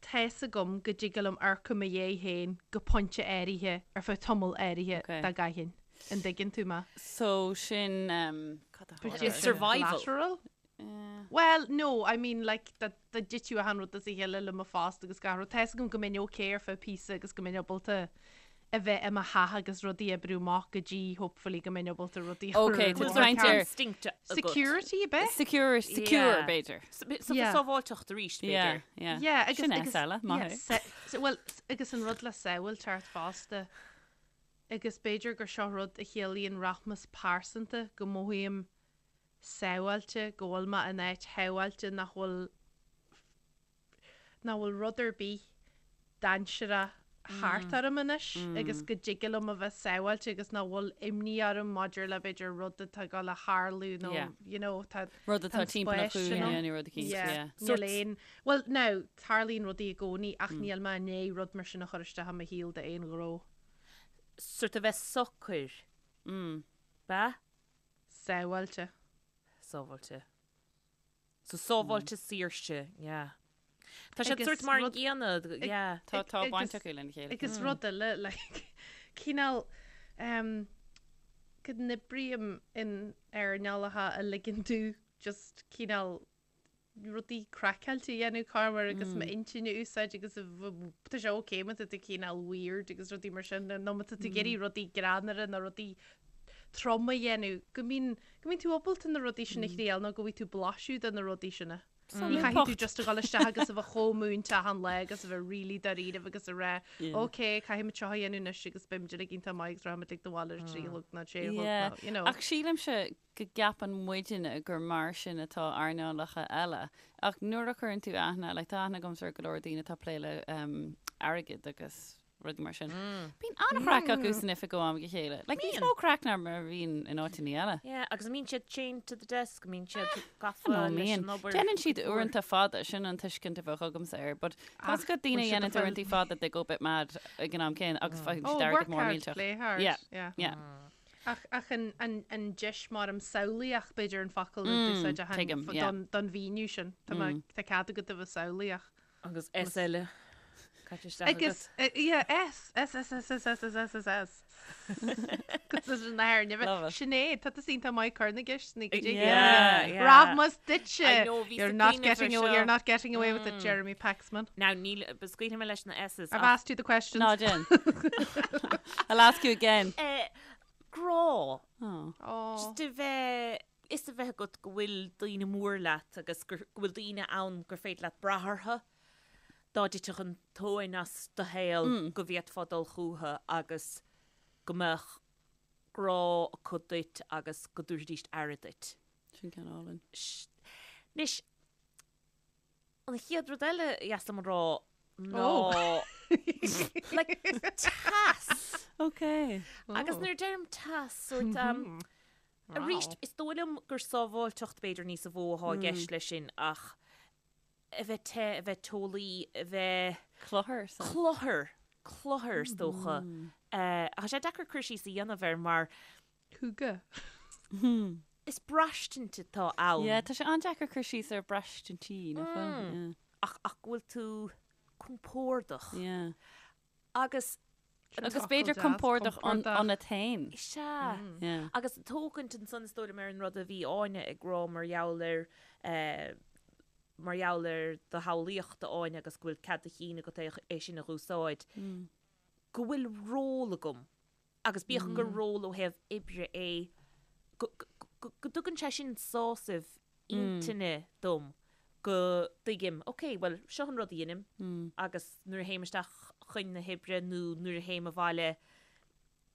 [SPEAKER 4] fhios agam go dtig liom amharc i mo dhiaidh féin go pointe áirithe ar feadh tamall áirithe
[SPEAKER 3] Okay.
[SPEAKER 4] dá gcaithfinn. An dtuigeann tú mé?
[SPEAKER 3] So sin um, cad a
[SPEAKER 4] B'fhéidir
[SPEAKER 3] tharla?
[SPEAKER 4] sin
[SPEAKER 2] Survival.
[SPEAKER 4] Collateral?
[SPEAKER 3] Yeah.
[SPEAKER 4] Well, no, I mean, like, dá dá dtitfeadh achan rud as a chéile le mo phost agus gach rud. Tá fhios agam go mbeinn okay ar feadh píosa agus go mbeinn ábalta a bheith i mo theach agus rudaí a oibriú amach go dtí, hopefully, go mbeinn ábalta rudaí a chur
[SPEAKER 3] Okay,
[SPEAKER 4] ar
[SPEAKER 3] tá
[SPEAKER 4] an
[SPEAKER 3] tú ag caint ar-
[SPEAKER 2] Instinct agat.
[SPEAKER 4] Security, ab ea?
[SPEAKER 3] Secure, secure,
[SPEAKER 2] Yeah.
[SPEAKER 3] b'fhéidir.
[SPEAKER 2] So
[SPEAKER 4] Yeah.
[SPEAKER 2] sábháilteacht arís,
[SPEAKER 3] Yeah,
[SPEAKER 2] b'fhéidir.
[SPEAKER 3] yeah.
[SPEAKER 4] Yeah, agus
[SPEAKER 3] Sin
[SPEAKER 4] agus
[SPEAKER 3] S eile, maith
[SPEAKER 4] yeah,
[SPEAKER 3] thú.
[SPEAKER 4] se- se- well, s- agus an rud le sábháilteacht fosta. Agus b'fhéidir gur seo rud a chiallaíonn rachmas pearsanta go mothaím sábháilte, go bhfuil mé in áit shábháilte nach bhfuil nach bhfuil rud ar bith dainséarach thart orm anois agus go dtig liom a bheith sábháilte agus nach bhfuil imní orm maidir le b'fhéidir rud atá ag dul a tharlú nó
[SPEAKER 3] Yeah.
[SPEAKER 4] you know tá
[SPEAKER 3] Rud atá
[SPEAKER 4] tá an
[SPEAKER 3] timpeall na
[SPEAKER 4] spás sin
[SPEAKER 3] cúinne
[SPEAKER 4] ann.
[SPEAKER 3] nó rud eicínt,
[SPEAKER 4] Yeah.
[SPEAKER 3] yeah.
[SPEAKER 4] Níl aon Bhuel now tarlaíonn rudaí i gcónaí ach níl mé i ndiaidh rud mar sin a chur isteach i mo shaol d'aon ghnó.
[SPEAKER 2] Sort a bheith socair.
[SPEAKER 3] Mm.
[SPEAKER 2] Ba?
[SPEAKER 4] Sábháilte.
[SPEAKER 2] Sábháilte. So sábháilte saoirse, yeah. Tá siad
[SPEAKER 4] Agus
[SPEAKER 2] sort mar an
[SPEAKER 4] rud-
[SPEAKER 2] gcéanna, yeah.
[SPEAKER 3] Tá tá
[SPEAKER 4] Agus-
[SPEAKER 3] baint acu lena chéile.
[SPEAKER 4] Agus rud eile, like, cineál um, go n-oibrím in earnálacha a ligeann domh just cineál rudaí craiceáilte a dhéanamh corruair agus m'intinn a úsáid agus a tá sé ok má tá tú cineál weird agus rudaí mar sin nó má tá tú ag iarraidh rudaí greannmhara nó rudaí troma a dhéanamh go mbíonn go mbíonn tú ábalta na rudaí sin a thriail nó go bhfaighidh tú blaiseadh de na rudaí sin. Ní chaithfidh tú just a dhul isteach agus a bheith chomh múinte achan lá agus a bheith really dáiríribh agus a rá ok caithfimid seo a dhéanamh anois agus beimid uilig iontach maith agus rachaimid ag do bhaile ar a 3 a chlog nó 6 a chlog nó you know.
[SPEAKER 3] Ach sílimse go gceapann muidinne gur mar sin atá earnálacha eile. Ach nuair a chuireann tú aithne, like tá aithne agamsa ar go leor daoine atá ag plé le um, airgead agus rudaí mar sin. Bíonn an-chraic acu san oifig ó am go chéile. Like níos mó craic ná mar a bhíonn in áiteanna eile.
[SPEAKER 2] Yeah, agus an mbíonn siad chained to the desk, an mbíonn siad gafa
[SPEAKER 3] No,
[SPEAKER 2] leis
[SPEAKER 3] mbíonn.
[SPEAKER 2] an obair.
[SPEAKER 3] Déanann siad uaireanta fada, sin an tuiscint a bheadh agamsa air, but tá
[SPEAKER 4] Ach,
[SPEAKER 3] go daoine
[SPEAKER 4] bhfuil siad
[SPEAKER 3] dhéanann
[SPEAKER 4] ag fáil-
[SPEAKER 3] uaireanta fada they go a bit mad ag an am céanna agus faigheann
[SPEAKER 4] Oh,
[SPEAKER 3] siad airgead
[SPEAKER 4] work
[SPEAKER 3] mór
[SPEAKER 4] hard,
[SPEAKER 3] millteach.
[SPEAKER 4] play hard.
[SPEAKER 3] Yeah,
[SPEAKER 4] Yeah.
[SPEAKER 3] yeah.
[SPEAKER 4] Ach, ach an, an, an deis mar am samhlaíoch b'fhéidir an focal a d'úsáid a
[SPEAKER 3] tuigim, yeah.
[SPEAKER 4] don, don mhíniú sin. Tá mé- tá cead agat a bheith samhlaíoch.
[SPEAKER 2] Agus S eile. Caite isteach
[SPEAKER 4] Agus,
[SPEAKER 2] agat.
[SPEAKER 4] eh, yeah, S, S, S, S, S, S, S, S, S, S. Agus is an air,
[SPEAKER 3] Love it.
[SPEAKER 4] Sinéad, tá tusa iontach maith ag cur na gceisteanna go dtí.
[SPEAKER 2] Yeah, yeah.
[SPEAKER 4] Rachmas duitse.
[SPEAKER 2] I know, bhí
[SPEAKER 4] You're
[SPEAKER 2] sa
[SPEAKER 4] not
[SPEAKER 2] cuimhneamh
[SPEAKER 4] getting
[SPEAKER 2] ar
[SPEAKER 4] away, you're
[SPEAKER 2] seo.
[SPEAKER 4] not getting away with it, Jeremy Paxman.
[SPEAKER 2] Now, níl, scaoilfidh mé leis na S's.
[SPEAKER 4] I've
[SPEAKER 2] ach-
[SPEAKER 4] asked you the questions.
[SPEAKER 3] Ná déan. I'll ask you again.
[SPEAKER 2] Eh, grá.
[SPEAKER 3] Oh.
[SPEAKER 4] Oh.
[SPEAKER 2] Just a bheith, is a bheith agat go bhfuil daoine mór leat agus gur, go bhfuil daoine ann gur féidir leat brath orthu. Dá dtitfeadh an tóin as do shaol go bhféadfá dul chucu agus. Go mbeadh grá acu duit agus go dtabharfaidís aire duit.
[SPEAKER 3] Sin ceann álainn.
[SPEAKER 2] Anois, an chéad rud eile a dheas liom a rá ná like teas.
[SPEAKER 3] Ok.
[SPEAKER 2] Agus nuair a deirim teas, sort um, arís, is dóigh liom gur sábháilteacht b'fhéidir níos a mhó atá i gceist leis sin ach a bheith te, a bheith teolaí, a bheith.
[SPEAKER 3] Cluthar.
[SPEAKER 2] Cluthar, cluthar is dócha. Ach tá sé deacair cur síos a dhéanamh air mar.
[SPEAKER 4] Hygge.
[SPEAKER 2] Is braistint atá ann.
[SPEAKER 3] Yeah, tá sé an-deacair cur síos ar braistintí, nach bhfuil? Yeah.
[SPEAKER 2] Ach, ach go bhfuil tú compordach.
[SPEAKER 3] Yeah.
[SPEAKER 2] Agus.
[SPEAKER 3] Agus b'fhéidir compordach ionat féin.
[SPEAKER 2] Is ea.
[SPEAKER 3] Yeah.
[SPEAKER 2] Agus tógaint ansan is dóigh liom ar an rud a bhí Áine ag rá mar gheall ar eh, mar gheall ar do shamhlaíocht a Áine agus go bhfuil cead do chinn agat é é sin a dh'úsáid, go bhfuil ról agam agus bíodh gur ról ó thaobh oibre é, go go go dtugann sé sin sásamh intinne dom go dtuigim, ok, bhuel, seo an rud a dheinim agus nuair a théim isteach chun na hoibre nó nuair a théim abhaile,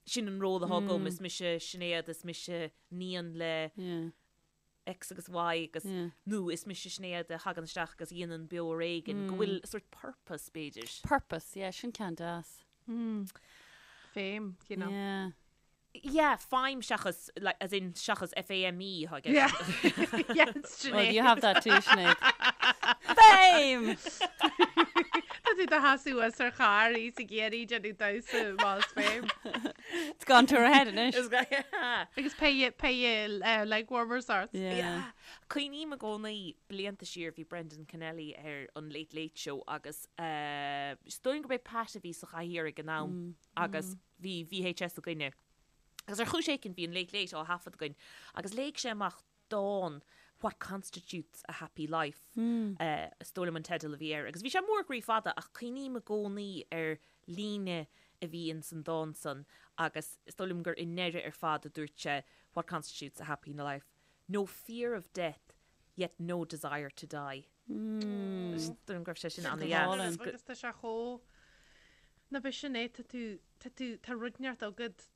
[SPEAKER 2] sin an ról atá agam, is mise Sinéad, is mise níon le X agus Y agus, nó is mise Sinéad a thagann isteach agus a dhéanann Beo Ar Éigean, go bhfuil sort purpose, b'fhéidir.
[SPEAKER 3] Purpose, yeah, sin ceann deas.
[SPEAKER 4] Feidhm, you know.
[SPEAKER 3] Yeah.
[SPEAKER 2] Yeah, feidhm seachas, like, as in seachas F-A-M-E atá i gceist.
[SPEAKER 4] Yeah, yeah, it's
[SPEAKER 3] Well,
[SPEAKER 4] Sinéad.
[SPEAKER 3] you have that too, Sinéad. Fame!
[SPEAKER 4] Tá tú do sheasamh suas ar charr í sa ghéirí déanamh damhsa más fame.
[SPEAKER 3] It's gone to her head anois.
[SPEAKER 2] Is go- yeah.
[SPEAKER 4] Agus pé pé eh, leg warmers ort.
[SPEAKER 3] Yeah.
[SPEAKER 2] Yeah. Cuimhním i gcónaí blianta siar bhí Brendan Kennelly ar an Late Late Show agus eh, is dóigh liom gurb é Pat a bhí sa chathaoir ag an am agus bhí VHS againne. Agus ar chúis éicint bhí an Late Late á thaifead againn agus léigh sé amach dán What Constitutes a Happy Life, is dóigh liom an teideal a bhí air. Agus bhí sé mór groí fada ach cuimhním i gcónaí ar líne a bhí ins an dán san agus is dóigh liom gur i ndeireadh ar fad a dúirt sé What constitutes a happy life? No fear of death yet no desire to die. Is dóigh liom go raibh sé sin an-dheas.
[SPEAKER 4] Agus tá sé chomh, ná b'shin é, tá tú, tá tú, tá rud inteacht agat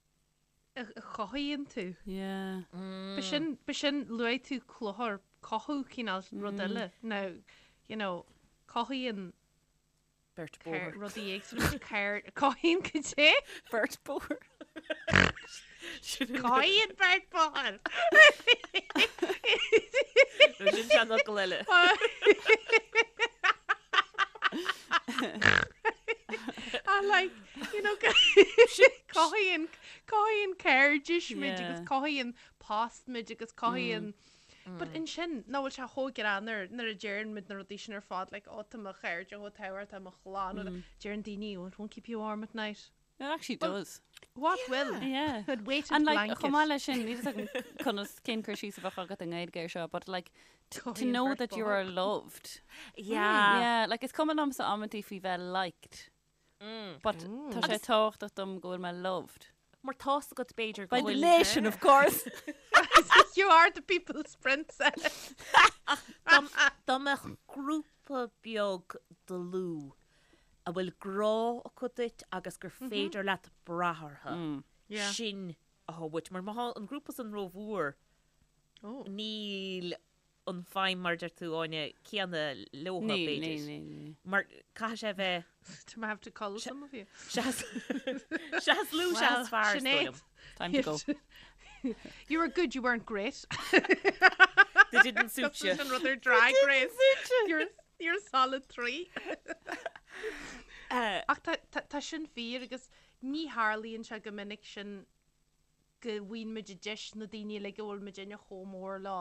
[SPEAKER 4] a chothaíonn tú.
[SPEAKER 3] Yeah.
[SPEAKER 4] B'shin, b'shin, luaigh tú cluthar, cothú cineál rud eile. Now, you know, cothaíonn
[SPEAKER 2] Beirt bóthair.
[SPEAKER 4] Rudaí éagsúla ceir cothaíonn cad é?
[SPEAKER 3] Beirt bóthair.
[SPEAKER 4] Cothaíonn beirt bóthair.
[SPEAKER 2] Sin seanfhocal eile.
[SPEAKER 4] I like, you know, cothaíonn cothaíonn cairdis muid agus cothaíonn post muid agus cothaíonn But ansin, nach bhfuil sé chomh greannmhar nuair a deireann muid na rudaí sin ar fad, like, oh, tá mo chairde chomh tábhachtach, tá mo chlann, mm. deireann daoine, oh, it won't keep you warm at night.
[SPEAKER 3] It actually does.
[SPEAKER 4] What will?
[SPEAKER 3] Yeah.
[SPEAKER 4] It weighted
[SPEAKER 3] And like,
[SPEAKER 4] blanket.
[SPEAKER 3] chomh maith leis sin, níl a fhios agam conas cén cur síos a bheadh agat i nGaeilge ar seo, but like, to
[SPEAKER 4] Cothaíonn
[SPEAKER 3] know
[SPEAKER 4] beirt
[SPEAKER 3] that you are
[SPEAKER 4] bóthar.
[SPEAKER 3] loved.
[SPEAKER 2] Yeah.
[SPEAKER 3] Yeah, like is cuma liomsa amantaí faoi bheith liked. But tá sé tábhachtach dom go bhfuil mé loved.
[SPEAKER 2] Mar tá's agat b'fhéidir go
[SPEAKER 3] By the
[SPEAKER 2] bhfuil
[SPEAKER 3] nation, of course.
[SPEAKER 4] You are the people's princess.
[SPEAKER 2] Dá mbeadh grúpa beag dlúth a bhfuil grá acu duit agus gur féidir leat brath orthu, sin atá uait. Mar má tá an grúpa san rómhór, níl an feidhm mar a deir tú Áine céanna leotha
[SPEAKER 3] Níl,
[SPEAKER 2] b'fhéidir.
[SPEAKER 3] níl, níl, níl.
[SPEAKER 2] Mar caithfidh sé bheith
[SPEAKER 4] Do I have to cull some of you?
[SPEAKER 2] Seas seas lú
[SPEAKER 4] Well,
[SPEAKER 2] seas fearr is dóigh
[SPEAKER 4] Sinéad.
[SPEAKER 2] liom.
[SPEAKER 3] Time to go.
[SPEAKER 4] You were good, you weren't great.
[SPEAKER 2] They didn't suit you.
[SPEAKER 4] Sin rud ar Drag Race. You're, you're a solid 3.
[SPEAKER 2] Uh,
[SPEAKER 4] Ach tá, tá, tá sin fíor agus ní tharlaíonn sé go minic sin go bhfaigheann muid an deis na daoine uilig a bhfuil muidinne chomh mór leo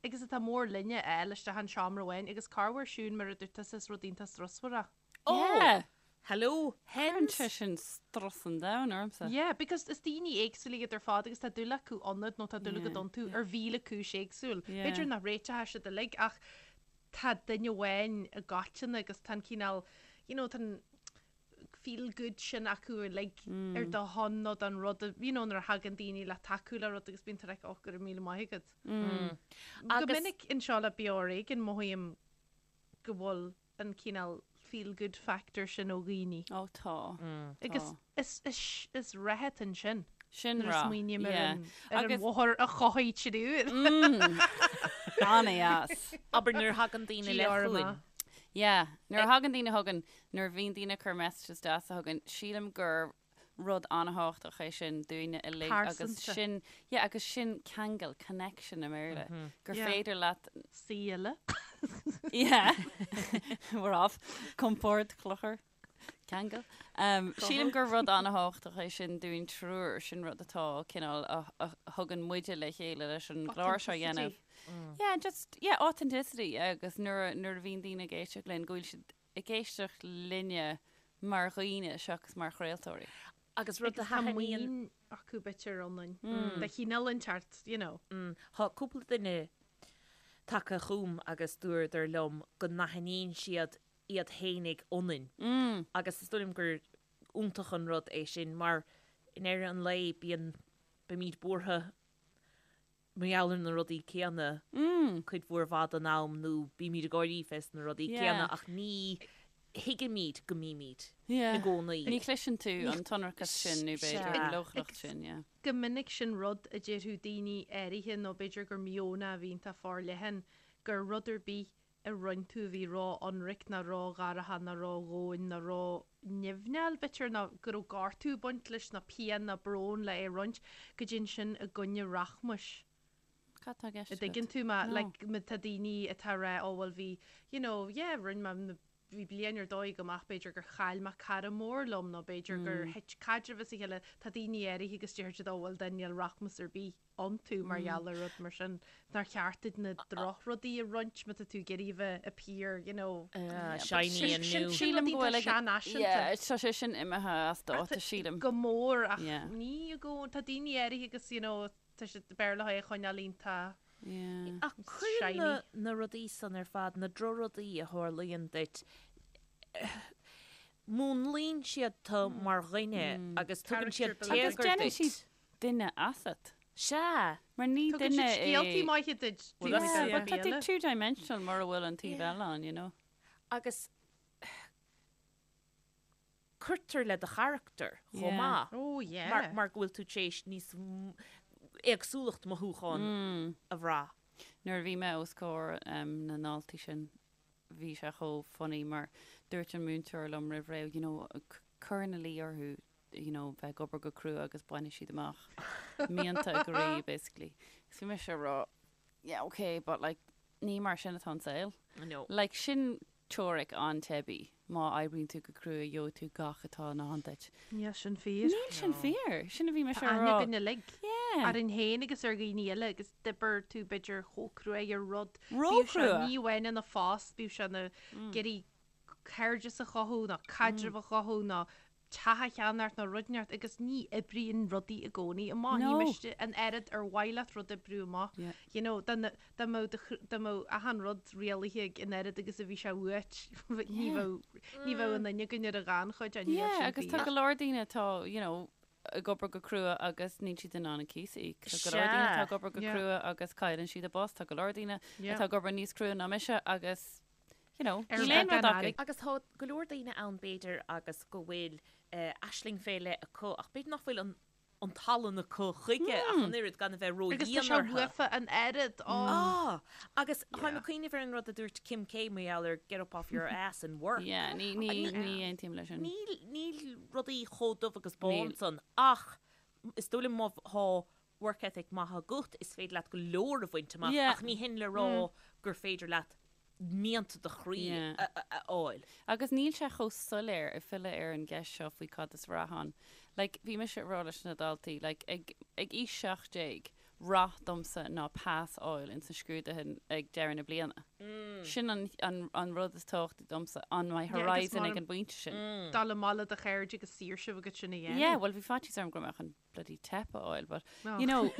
[SPEAKER 4] agus atá mór linne a fháil isteach in seomra amháin agus corruair Siún mar a dúirt tusa is rud iontach strusmhar é.
[SPEAKER 2] Oh!
[SPEAKER 3] Yeah.
[SPEAKER 2] Hello,
[SPEAKER 3] Cuireann
[SPEAKER 2] hens!
[SPEAKER 3] sé sin strus an domhain ormsa.
[SPEAKER 4] Yeah, because is daoine éagsúla iad ar fad agus tá dúil acu ionat nó tá dúil agat iontu ar mhíle cúis éagsúil.
[SPEAKER 3] Yeah.
[SPEAKER 4] B'fhéidir nach réiteoidh siad uilig ach tá duine amháin i gcoitinne agus tá an cineál, you know, tá an, feel good sin acu uilig ar do shon nó don rud a, you know, nuair a thagann daoine le tacú le rud agus bíonn tú like, oh, go raibh míle maith agat. Go
[SPEAKER 2] Agus-
[SPEAKER 4] minic anseo le Beo Ar Éigean mothaím go bhfuil an cineál feel good factor sin ó dhaoine.
[SPEAKER 3] Ó tá.
[SPEAKER 4] Agus
[SPEAKER 3] Tá.
[SPEAKER 4] is, is, is rath ansin.
[SPEAKER 3] Sin
[SPEAKER 4] Nuair a
[SPEAKER 3] rath.
[SPEAKER 4] smaoiním ar
[SPEAKER 3] Yeah.
[SPEAKER 4] an ar an
[SPEAKER 3] Agus
[SPEAKER 4] mháthair a chothaigh triúr.
[SPEAKER 3] An-dheas.
[SPEAKER 2] Abair nuair a thagann daoine le
[SPEAKER 4] GR
[SPEAKER 2] chugainn.
[SPEAKER 4] amach.
[SPEAKER 3] Yeah. Nuair a thagann daoine chugainn, nuair a bhíonn daoine ag cur messages deasa chugainn, sílim gur rud an-thábhachtach é sin dúinne uilig agus
[SPEAKER 4] Pearsanta.
[SPEAKER 3] sin, yeah, agus sin ceangal, connection i mBéarla, gur
[SPEAKER 4] Yeah.
[SPEAKER 3] féidir leat,
[SPEAKER 4] Saoile.
[SPEAKER 3] yeah, we're off, compord, clochar, ceangal. Um, sílim gur rud an-thábhachtach é sin dúinn triúr, sin rud atá cineál a, a thugann muide le chéile leis an gclár seo a dhéanamh. Yeah, just, yeah, authenticity, yeah, agus nuair a, nuair a bhíonn daoine ag éisteacht linn, go bhfuil siad ag éisteacht linne mar dhaoine seachas mar chraoltóirí.
[SPEAKER 2] Agus rud a
[SPEAKER 4] Agus tá
[SPEAKER 2] thaitníonn.
[SPEAKER 4] muinín acu b'fhéidir ionainn. De chineál inteacht, you know.
[SPEAKER 2] Tá cúpla duine tagtha chugam agus dúradar liom go n-aithníonn siad iad fhéinig ionainn. Agus is dóigh liom gur iontach an rud é sin mar i ndeireadh an lae bíonn, bímid buartha mar gheall ar na rudaí céanna cuid mhór mhaith den am nó bímid ag gáirí fés na rudaí céanna ach ní thuigimid go mbímid i gcónaí.
[SPEAKER 3] Ní chloiseann tú an t-ionracas sin nó b'fhéidir an leochaileacht sin, yeah.
[SPEAKER 4] Go minic sin rud a déarfadh daoine áirithe nó b'fhéidir gur meon a bhíonn tá forleathan gur rud ar bith a roinn tú a bhí ró-ionraic ná ró-dhearfach ná ró-dhomhain ná ró-nimhneach b'fhéidir nó go raibh gortú ag baint leis ná pian ná brón le é roinnt, go dtéann sin i gcoinne rachmais.
[SPEAKER 3] Cad tá i gceist
[SPEAKER 4] A
[SPEAKER 3] agat?
[SPEAKER 4] dtuigeann tú mé?
[SPEAKER 3] No.
[SPEAKER 4] Like má tá daoine atá ag rá oh bhuel bhí you know yeah roinn mé na bhí bliain ar dóigh agam ach b'fhéidir gur chaill mé cara mór liom nó b'fhéidir gur thit caidreamh as a chéile tá daoine áirithe agus deir siad oh bhuel then níl rachmas ar bith. iontu mar gheall ar rud mar sin. Nár cheart duit na drochrudaí a roinnt má tá tú ag iarraidh a bheith appear, you know.
[SPEAKER 2] Shiny and new.
[SPEAKER 3] Sílim go bhfuil ag
[SPEAKER 4] seanfhaiseanta.
[SPEAKER 3] Yeah, tá sé sin imithe as dáta, sílim.
[SPEAKER 4] Go mór ach
[SPEAKER 3] Yeah.
[SPEAKER 4] ní i gcónaí, tá daoine áirithe agus, you know, tá siad b'fhearr leo é a choinneáil iontach
[SPEAKER 3] Yeah.
[SPEAKER 2] Ach cuireann
[SPEAKER 4] shiny.
[SPEAKER 2] na, na rudaí san ar fad, na drochrudaí a tharlaíonn duit, múnlaíonn siad tú mar dhuine agus tugann siad
[SPEAKER 4] Character building.
[SPEAKER 3] Agus
[SPEAKER 2] téagar
[SPEAKER 3] déanann
[SPEAKER 2] duit.
[SPEAKER 3] siad duine asat.
[SPEAKER 2] Sea.
[SPEAKER 3] Mar ní
[SPEAKER 4] Tugann
[SPEAKER 3] duine
[SPEAKER 4] siad scéaltaí
[SPEAKER 3] é.
[SPEAKER 4] maithe duit.
[SPEAKER 2] Well,
[SPEAKER 4] taobh
[SPEAKER 2] that's
[SPEAKER 4] amuigh
[SPEAKER 2] it.
[SPEAKER 4] den
[SPEAKER 3] But tá tú
[SPEAKER 4] bhéile.
[SPEAKER 3] two-dimensional mura bhfuil an taobh eile ann, you know.
[SPEAKER 2] Agus cuirtear le do charachtar chomh
[SPEAKER 3] Yeah.
[SPEAKER 2] maith.
[SPEAKER 4] Oh yeah.
[SPEAKER 2] Mar, mar go bhfuil tú tar éis níos m- éagsúlacht mothúchán a bhrath.
[SPEAKER 3] Nuair a bhí mé os comhair um, na ndaltaí sin, bhí sé chomh funny mar dúirt an múinteoir liom roimh ré, you know, c- cuir ina luí orthu you know, bheith ag obair go crua agus bainfidh siad amach mianta a gcroí, basically. Agus bhí mise ag rá, yeah, okay, but like, ní mar sin atá an saol.
[SPEAKER 2] No.
[SPEAKER 3] Like, sin teoiric an-teibí, má oibríonn tú go crua, gheobhaidh tú gach atá i ndán duit.
[SPEAKER 4] Níl sin fíor.
[SPEAKER 3] Níl sin fíor. Sin a bhí mise
[SPEAKER 4] Tá
[SPEAKER 3] ag
[SPEAKER 4] aithne
[SPEAKER 3] rá.
[SPEAKER 4] againn uilig
[SPEAKER 3] Yeah.
[SPEAKER 4] orainn féin agus ar dhaoine eile agus d'oibir tú b'fhéidir chomh crua ar rud. Bíodh sé
[SPEAKER 3] Ró-chrua.
[SPEAKER 4] ní amháin ina phost, bíodh sé ina ag iarraidh cairdeas a chothú nó caidreamh a chothú nó teach a cheannacht nó rud inteacht agus ní oibríonn rudaí i gcónaí amach. Ní
[SPEAKER 3] No.
[SPEAKER 4] miste an oiread ar mhaith leat rud oibriú amach.
[SPEAKER 3] Yeah.
[SPEAKER 4] You know, dá na- dá mbeadh do chr- dá mbeadh achan rud rialaithe ag an oiread agus a bhí sé uait, ní
[SPEAKER 3] Yeah.
[SPEAKER 4] bheadh ní bheadh aon duine againn ar an ghannchuid, níl
[SPEAKER 3] Yeah,
[SPEAKER 4] sin
[SPEAKER 3] agus tá
[SPEAKER 4] fíor.
[SPEAKER 3] go leor daoine atá, you know, ag obair go crua agus níl siad in ann an cíos a íoc. Tá go leor daoine atá ag obair go
[SPEAKER 4] Yeah.
[SPEAKER 3] crua agus cailleann siad a bpost. Tá go leor daoine
[SPEAKER 4] Yeah.
[SPEAKER 3] atá ag obair níos crua ná mise agus you know,
[SPEAKER 4] Ar
[SPEAKER 3] níl aon
[SPEAKER 4] bheagán
[SPEAKER 3] rud acu.
[SPEAKER 4] airgid.
[SPEAKER 2] Agus tá go leor daoine ann b'fhéidir agus go bhfuil aisling fé leith acu ach b'fhéidir nach bhfuil an an tallann acu chuige ach an oiread gan a bheith
[SPEAKER 4] Agus tá
[SPEAKER 2] ródhian
[SPEAKER 4] sé
[SPEAKER 2] orthu.
[SPEAKER 4] uafa an oiread, ó.
[SPEAKER 2] Ah! Agus táim ag cuimhneamh ar an rud a dúirt Kim K mar gheall ar get up off your ass and work.
[SPEAKER 3] Yeah, ní, ní, ní aontaím leis sin.
[SPEAKER 2] Níl, níl rudaí chomh dubh agus bán
[SPEAKER 3] Níl.
[SPEAKER 2] san ach is dóigh liom má thá work ethic maith agat is féidir leat go leor a bhaint amach
[SPEAKER 3] Yeah.
[SPEAKER 2] ach ní hin le rá gur féidir leat mianta do chroí a fháil.
[SPEAKER 3] Agus níl sé chomh soiléir ag filleadh ar an gceist seo faoi cad is rath ann. Like, bhí mise ag rá leis na daltaí, like, ag, ag aois 17, rath domsa ná pas a fháil ins na scrúduithe ag deireadh na bliana. Sin an, an, an rud is tábhachtaí domsa, on my
[SPEAKER 4] Yeah, agus
[SPEAKER 3] horizon
[SPEAKER 4] mar
[SPEAKER 3] ag an bpointe sin.
[SPEAKER 4] Dul amach le do chairde agus saoirse a bheith agat sin a dhéanamh.
[SPEAKER 3] Yeah, well bhí faitíos orm go raibh mé chun bloody teip a fháil, but,
[SPEAKER 4] Oh.
[SPEAKER 3] you know,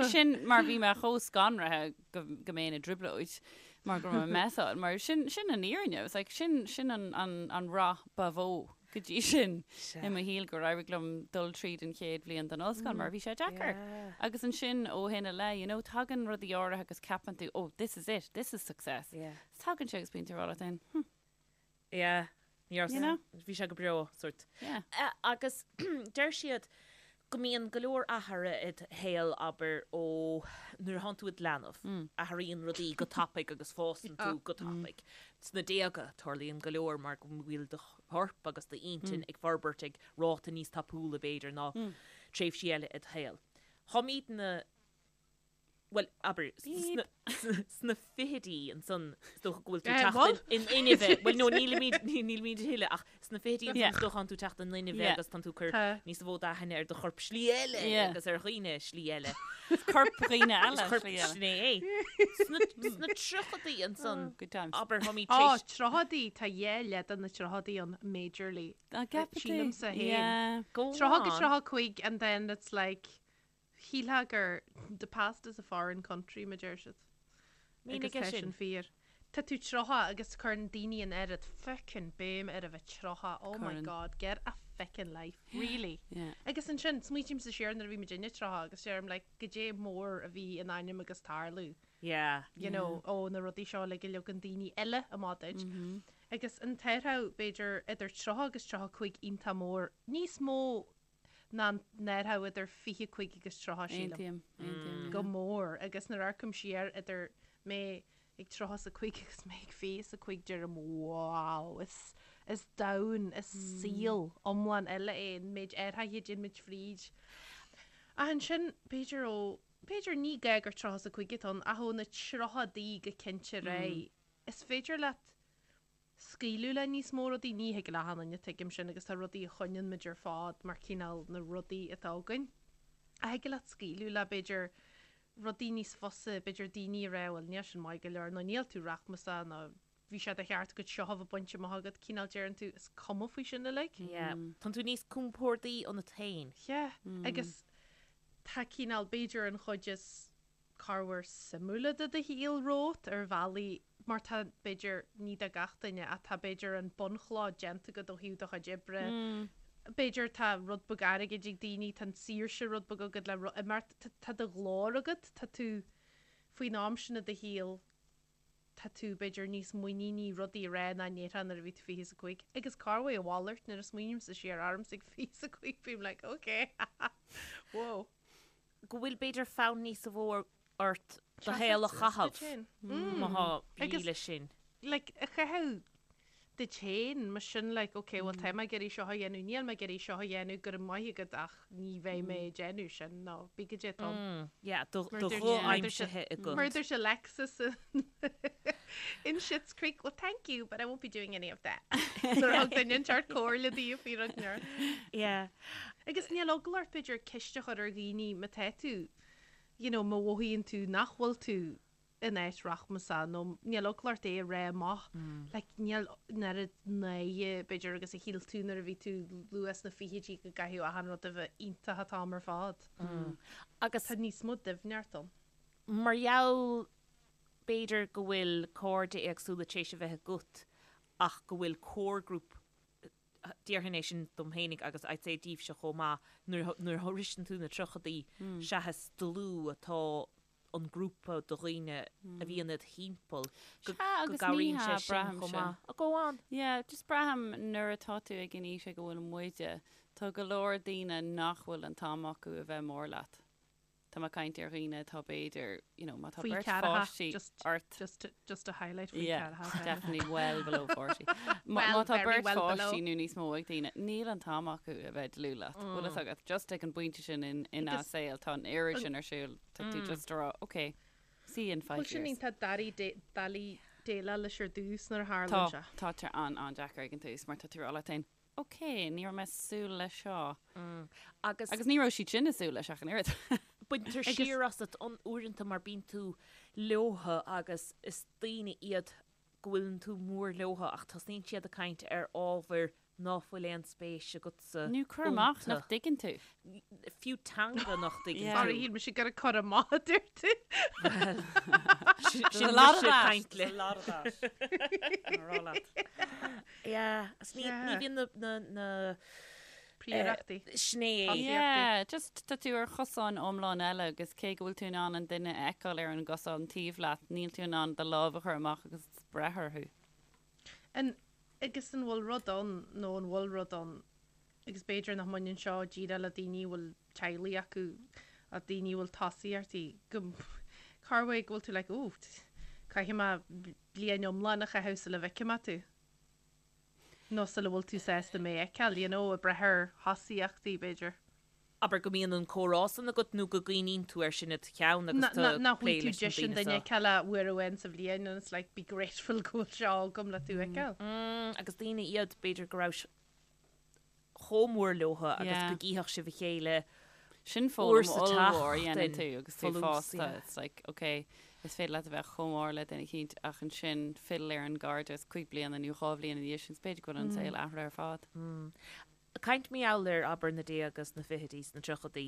[SPEAKER 3] sin mar bhí mé chomh scanraithe go, go mbeinn i dtrioblóid mar go raibh mé messáil, mar sin, sin an fhírinne. It was like, sin, sin an, an, an rath ba mhó go dtí sin i mo shaol gur éirigh liom dul tríd an chéad bhliain den ollscoil mar bhí sé deacair. Agus ansin ó shin i leith, you know, tagann rudaí áirithe agus ceapann tú, oh, this is it, this is success.
[SPEAKER 2] Yeah.
[SPEAKER 3] Tagann sé agus bíonn tú ag rá leat féin, hm,
[SPEAKER 2] Yeah. Ní raibh
[SPEAKER 3] You know?
[SPEAKER 2] Bhí sé go breá, sort.
[SPEAKER 3] yeah.
[SPEAKER 2] Agus deir siad Go mbíonn go leor athruithe id shaol, abair, ó nuair a thánn tú id leanbh. Athraíonn rudaí go tapaidh agus fásann tú go tapaidh. Sna déaga, tarlaíonn go leor mar go bhfuil do chorp agus d'intinn ag forbairt ag ráta níos tapúla, b'fhéidir, ná tréimhsí eile id shaol. Táimidne. bhuel, abair, sna fichidí ansan, is dócha go bhfuil tú ag teacht in inmhe, bhuel, no, nílimid, nílimid a thuilleadh, ach sna fichidí ansan, is dócha, tánn tú ag teacht in inmhe agus tánn tú ag cur níos mó d'aithne ar do chorp slí eile agus ar dhaoine slí eile.
[SPEAKER 3] Corp dhaoine eile slí eile.
[SPEAKER 2] Sin é. Sna tríochadaí ansan, abair, táimid tar
[SPEAKER 4] éis. Á, tríochadaí, tá dhá leath de na tríochadaí ann, majorly. Sílimse féin. 30 go 35 and then it's like, Shílfeá gur the past is a foreign country, mar deir siad.
[SPEAKER 2] Mínigh
[SPEAKER 4] Agus
[SPEAKER 2] é
[SPEAKER 4] tá
[SPEAKER 2] sin.
[SPEAKER 4] sin fíor. Tá tú 30 agus cuireann daoine an oiread fucking béim ar a bheith 30, oh my
[SPEAKER 3] Cuireann.
[SPEAKER 4] god, get a fucking life, really.
[SPEAKER 3] Yeah.
[SPEAKER 4] Agus ansin, smaoitímse siar nuair a bhí muidinne 30 agus deirim like, goidé mór a bhí in ainm agus tarlú,
[SPEAKER 2] Yeah.
[SPEAKER 4] you know, ó na rudaí seo uilig a leagann daoine eile amach duit. Agus an t-athrú, b'fhéidir, idir 30 agus 35 iontach mór, níos mó ná an t-athrú idir 25 agus 30, sílim.
[SPEAKER 3] Aontaím, aontaím, yeah.
[SPEAKER 4] Go mór. Agus nuair a amharcaim siar idir mé ag 35 agus mé ag 25 deirim wow, is, is domhan, is saol iomlán eile é an méid athraithe a dtéann muid fríd. Ach ansin, b'fhéidir ó, b'fhéidir ní gá gur 35 atá ann, ach ó na tríochadaí go cinnte ar aghaidh, is féidir leat scaoileadh le níos mó rudaí, ní thig le achan duine, tuigim sin, agus tá rudaí a choinníonn muid ar fad mar cineál na rudaí atá againn. Ach thig leat scaoileadh le, b'fhéidir, rudaí níos fusa, b'fhéidir daoine a rá, bhuel, níl sin maith go leor, nó níl tú rachmasach, nó bhí sé de cheart agat seo a bheith bainte amach agat, cineál deireann tú, is cuma faoi sin uilig.
[SPEAKER 2] Yeah. Tánn tú níos compórdaí ionat féin.
[SPEAKER 4] Yeah. Agus tá cineál, b'fhéidir an chuid is corruair suimiúla de do shaol romhat ar bhealaí mar tá, b'fhéidir, ní do gach duine, ach tá, b'fhéidir, an bunchloch déanta agat ó thaobh do chuid oibre, b'fhéidir tá rud beag airgid ag daoine, tá an saoirse rud beag agat le imeacht, tá do ghlór agat, tá tú, faoin am sin i do shaol, tá tú, b'fhéidir, níos muiníní rudaí a rá ná a ndéarfá nuair a bhí tú 25. Agus corruair a mhalairt, nuair a smaoinímse siar ormsa ag 25, bím like, ok, whoa.
[SPEAKER 2] go bhfuil b'fhéidir fonn níos mó ort do shaol a chaitheamh má tá brí leis sin.
[SPEAKER 4] Like, a chaitheamh duit féin, mar sin like, ok, well tá mé ag iarraidh seo a dhéanamh, níl mé ag iarraidh seo a dhéanamh, go raibh maith agat ach ní bheidh mé ag déanamh sin, nó bí go dté tom.
[SPEAKER 2] Yeah, do ghuth aimsithe agat.
[SPEAKER 4] Mar a dúirt Alexis in Schitt's Creek, well thank you, but I won't be doing any of that. Nuair a thug duine inteacht comhairle di faoi rud nuair.
[SPEAKER 2] Yeah.
[SPEAKER 4] Agus níl eagla ort, b'fhéidir, ceist a chur ar dhaoine má tá tú, you know, má mhothaíonn tú nach bhfuil tú in áit rachmasach nó níl eagla ort é a rá amach. Like, níl an oiread náire, b'fhéidir, agus a shíl tú nuair a bhí tú luath sna fichidí go gcaithfeadh achan rud a bheith iontach an t-am ar fad.
[SPEAKER 2] Agus.
[SPEAKER 4] Tá níos mó doimhneacht ann.
[SPEAKER 2] Mar gheall, b'fhéidir, go bhfuil cairde éagsúla tar éis a bheith agat ach go bhfuil core group Déarfainn é sin dom fhéinig agus I'd say daoibhse chomh maith, nuair a shroiseann tú na tríochadaí, seachas dlúth atá an grúpa de dhaoine a bhíonn id thimpeall, go gcabhraíonn sé sin chomh maith. Go on.
[SPEAKER 3] Yeah, just braithim nuair atá tú ag an aois ag a bhfuil muide, tá go leor daoine nach bhfuil an t-am acu a bheith mór leat. Tá mé ag caint ar dhaoine atá b'fhéidir, you know, má tá
[SPEAKER 4] Faoi
[SPEAKER 3] beirt
[SPEAKER 4] ceathracha,
[SPEAKER 3] pháistí
[SPEAKER 4] just,
[SPEAKER 3] ort.
[SPEAKER 4] just to, just to highlight faoi
[SPEAKER 3] Yeah,
[SPEAKER 4] ceathracha.
[SPEAKER 3] definitely well below 40. Má
[SPEAKER 4] Well,
[SPEAKER 3] má tá
[SPEAKER 4] very
[SPEAKER 3] beirt
[SPEAKER 4] well below.
[SPEAKER 3] pháistí nó níos mó ag daoine, níl an t-am acu a bheith dlúth leat. Bhfuil fhios agat, just ag an bpointe sin in, ina
[SPEAKER 4] Agus
[SPEAKER 3] saol, tá an oiread
[SPEAKER 4] an-
[SPEAKER 3] sin ar siúl, tá tú just a rá, okay, see you in five
[SPEAKER 4] Bhuel, sin
[SPEAKER 3] years.
[SPEAKER 4] iontach doiligh, doiligh déileáil leis ar dtús nuair a
[SPEAKER 3] Tá,
[SPEAKER 4] tharlaíonn sé.
[SPEAKER 3] tá sé an, an-deacair ag an tús mar tá tú a rá leat féin, Ok, ní raibh mé ag súil leis seo.
[SPEAKER 2] Agus.
[SPEAKER 3] Agus ní raibh siad sin ag súil leis ach an oiread.
[SPEAKER 2] Baintear siar asat uaireanta mar bíonn tú leotha agus is daoine iad go bhfuileann tú mór leotha ach tosnaíonn siad ag caint ar ábhair ná fuil aon spéis agatsa
[SPEAKER 3] Nó cur amach nach
[SPEAKER 2] iontu.
[SPEAKER 3] dtuigeann tú.
[SPEAKER 2] Fiú teanga nach dtuigeann
[SPEAKER 3] Yeah.
[SPEAKER 4] Sorry,
[SPEAKER 2] tú.
[SPEAKER 4] shíl mise gur ag cur amach a dúirt tú.
[SPEAKER 2] Bhuel, sin
[SPEAKER 3] There's a lot of
[SPEAKER 2] mise ag
[SPEAKER 3] that.
[SPEAKER 2] caint
[SPEAKER 3] There's a
[SPEAKER 2] le.
[SPEAKER 3] lot of that. Tá rá leat.
[SPEAKER 2] Yeah, agus ní
[SPEAKER 4] Yeah.
[SPEAKER 2] ní bhíonn na na na
[SPEAKER 4] Príorachtaí.
[SPEAKER 2] Sin é.
[SPEAKER 4] Tosaíochtaí.
[SPEAKER 3] Yeah, just tá tú ar chosán iomlán eile agus cé go bhfuil tú in ann an duine a fheiceáil ar an gcosán taobh leat, níl tú in ann do lámh a chur amach agus breith orthu.
[SPEAKER 4] An, agus an bhfuil rud ann, nó an bhfuil rud ann. agus b'fhéidir nach mbaineann seo díreach le daoine a bhfuil teaghlaigh acu ach daoine a bhfuil tosaíochtaí go corruair go bhfuil tú like oh caithfidh mé bliain iomlán a chaitheamh sula bhfeicfidh mé tú nó sula bhfuil tú sásta mé a fheiceáil, you know, ag brath ar thosaíochtaí b'fhéidir.
[SPEAKER 2] Abair go mbíonn an comhrá san agat nó go gcuimhníonn tú air sin id cheann agus tú ag
[SPEAKER 4] Nach
[SPEAKER 2] plé
[SPEAKER 4] bhfuil tú
[SPEAKER 2] leis na
[SPEAKER 4] deis an
[SPEAKER 2] daoine
[SPEAKER 4] duine
[SPEAKER 2] seo.
[SPEAKER 4] a fheiceáil ach uair amháin sa bhliain and it's like be grateful go bhfuil seo agam le tú a fheiceáil.
[SPEAKER 2] Agus daoine iad b'fhéidir go rabhais chomh mór leotha agus
[SPEAKER 3] Yeah.
[SPEAKER 2] go gcífeadh sibh a chéile
[SPEAKER 3] Sin
[SPEAKER 2] uair
[SPEAKER 3] foghlaim
[SPEAKER 2] sa
[SPEAKER 3] ollmhór a dhéanann
[SPEAKER 2] tseachtain
[SPEAKER 3] tú agus tú
[SPEAKER 2] folús,
[SPEAKER 3] fásta.
[SPEAKER 2] yeah.
[SPEAKER 3] It's like, okay, is féidir leat a bheith chomh mór le duine eicínt ach ansin fill ar an gcairdeas cúig bliana nó dhá bhliain ina dhiaidh sin, is b'fhéidir go bhfuil an saol athraithe ar fad.
[SPEAKER 2] Ag caint mar gheall ar, abair, na déaga sna fichidí, sna tríochaidí.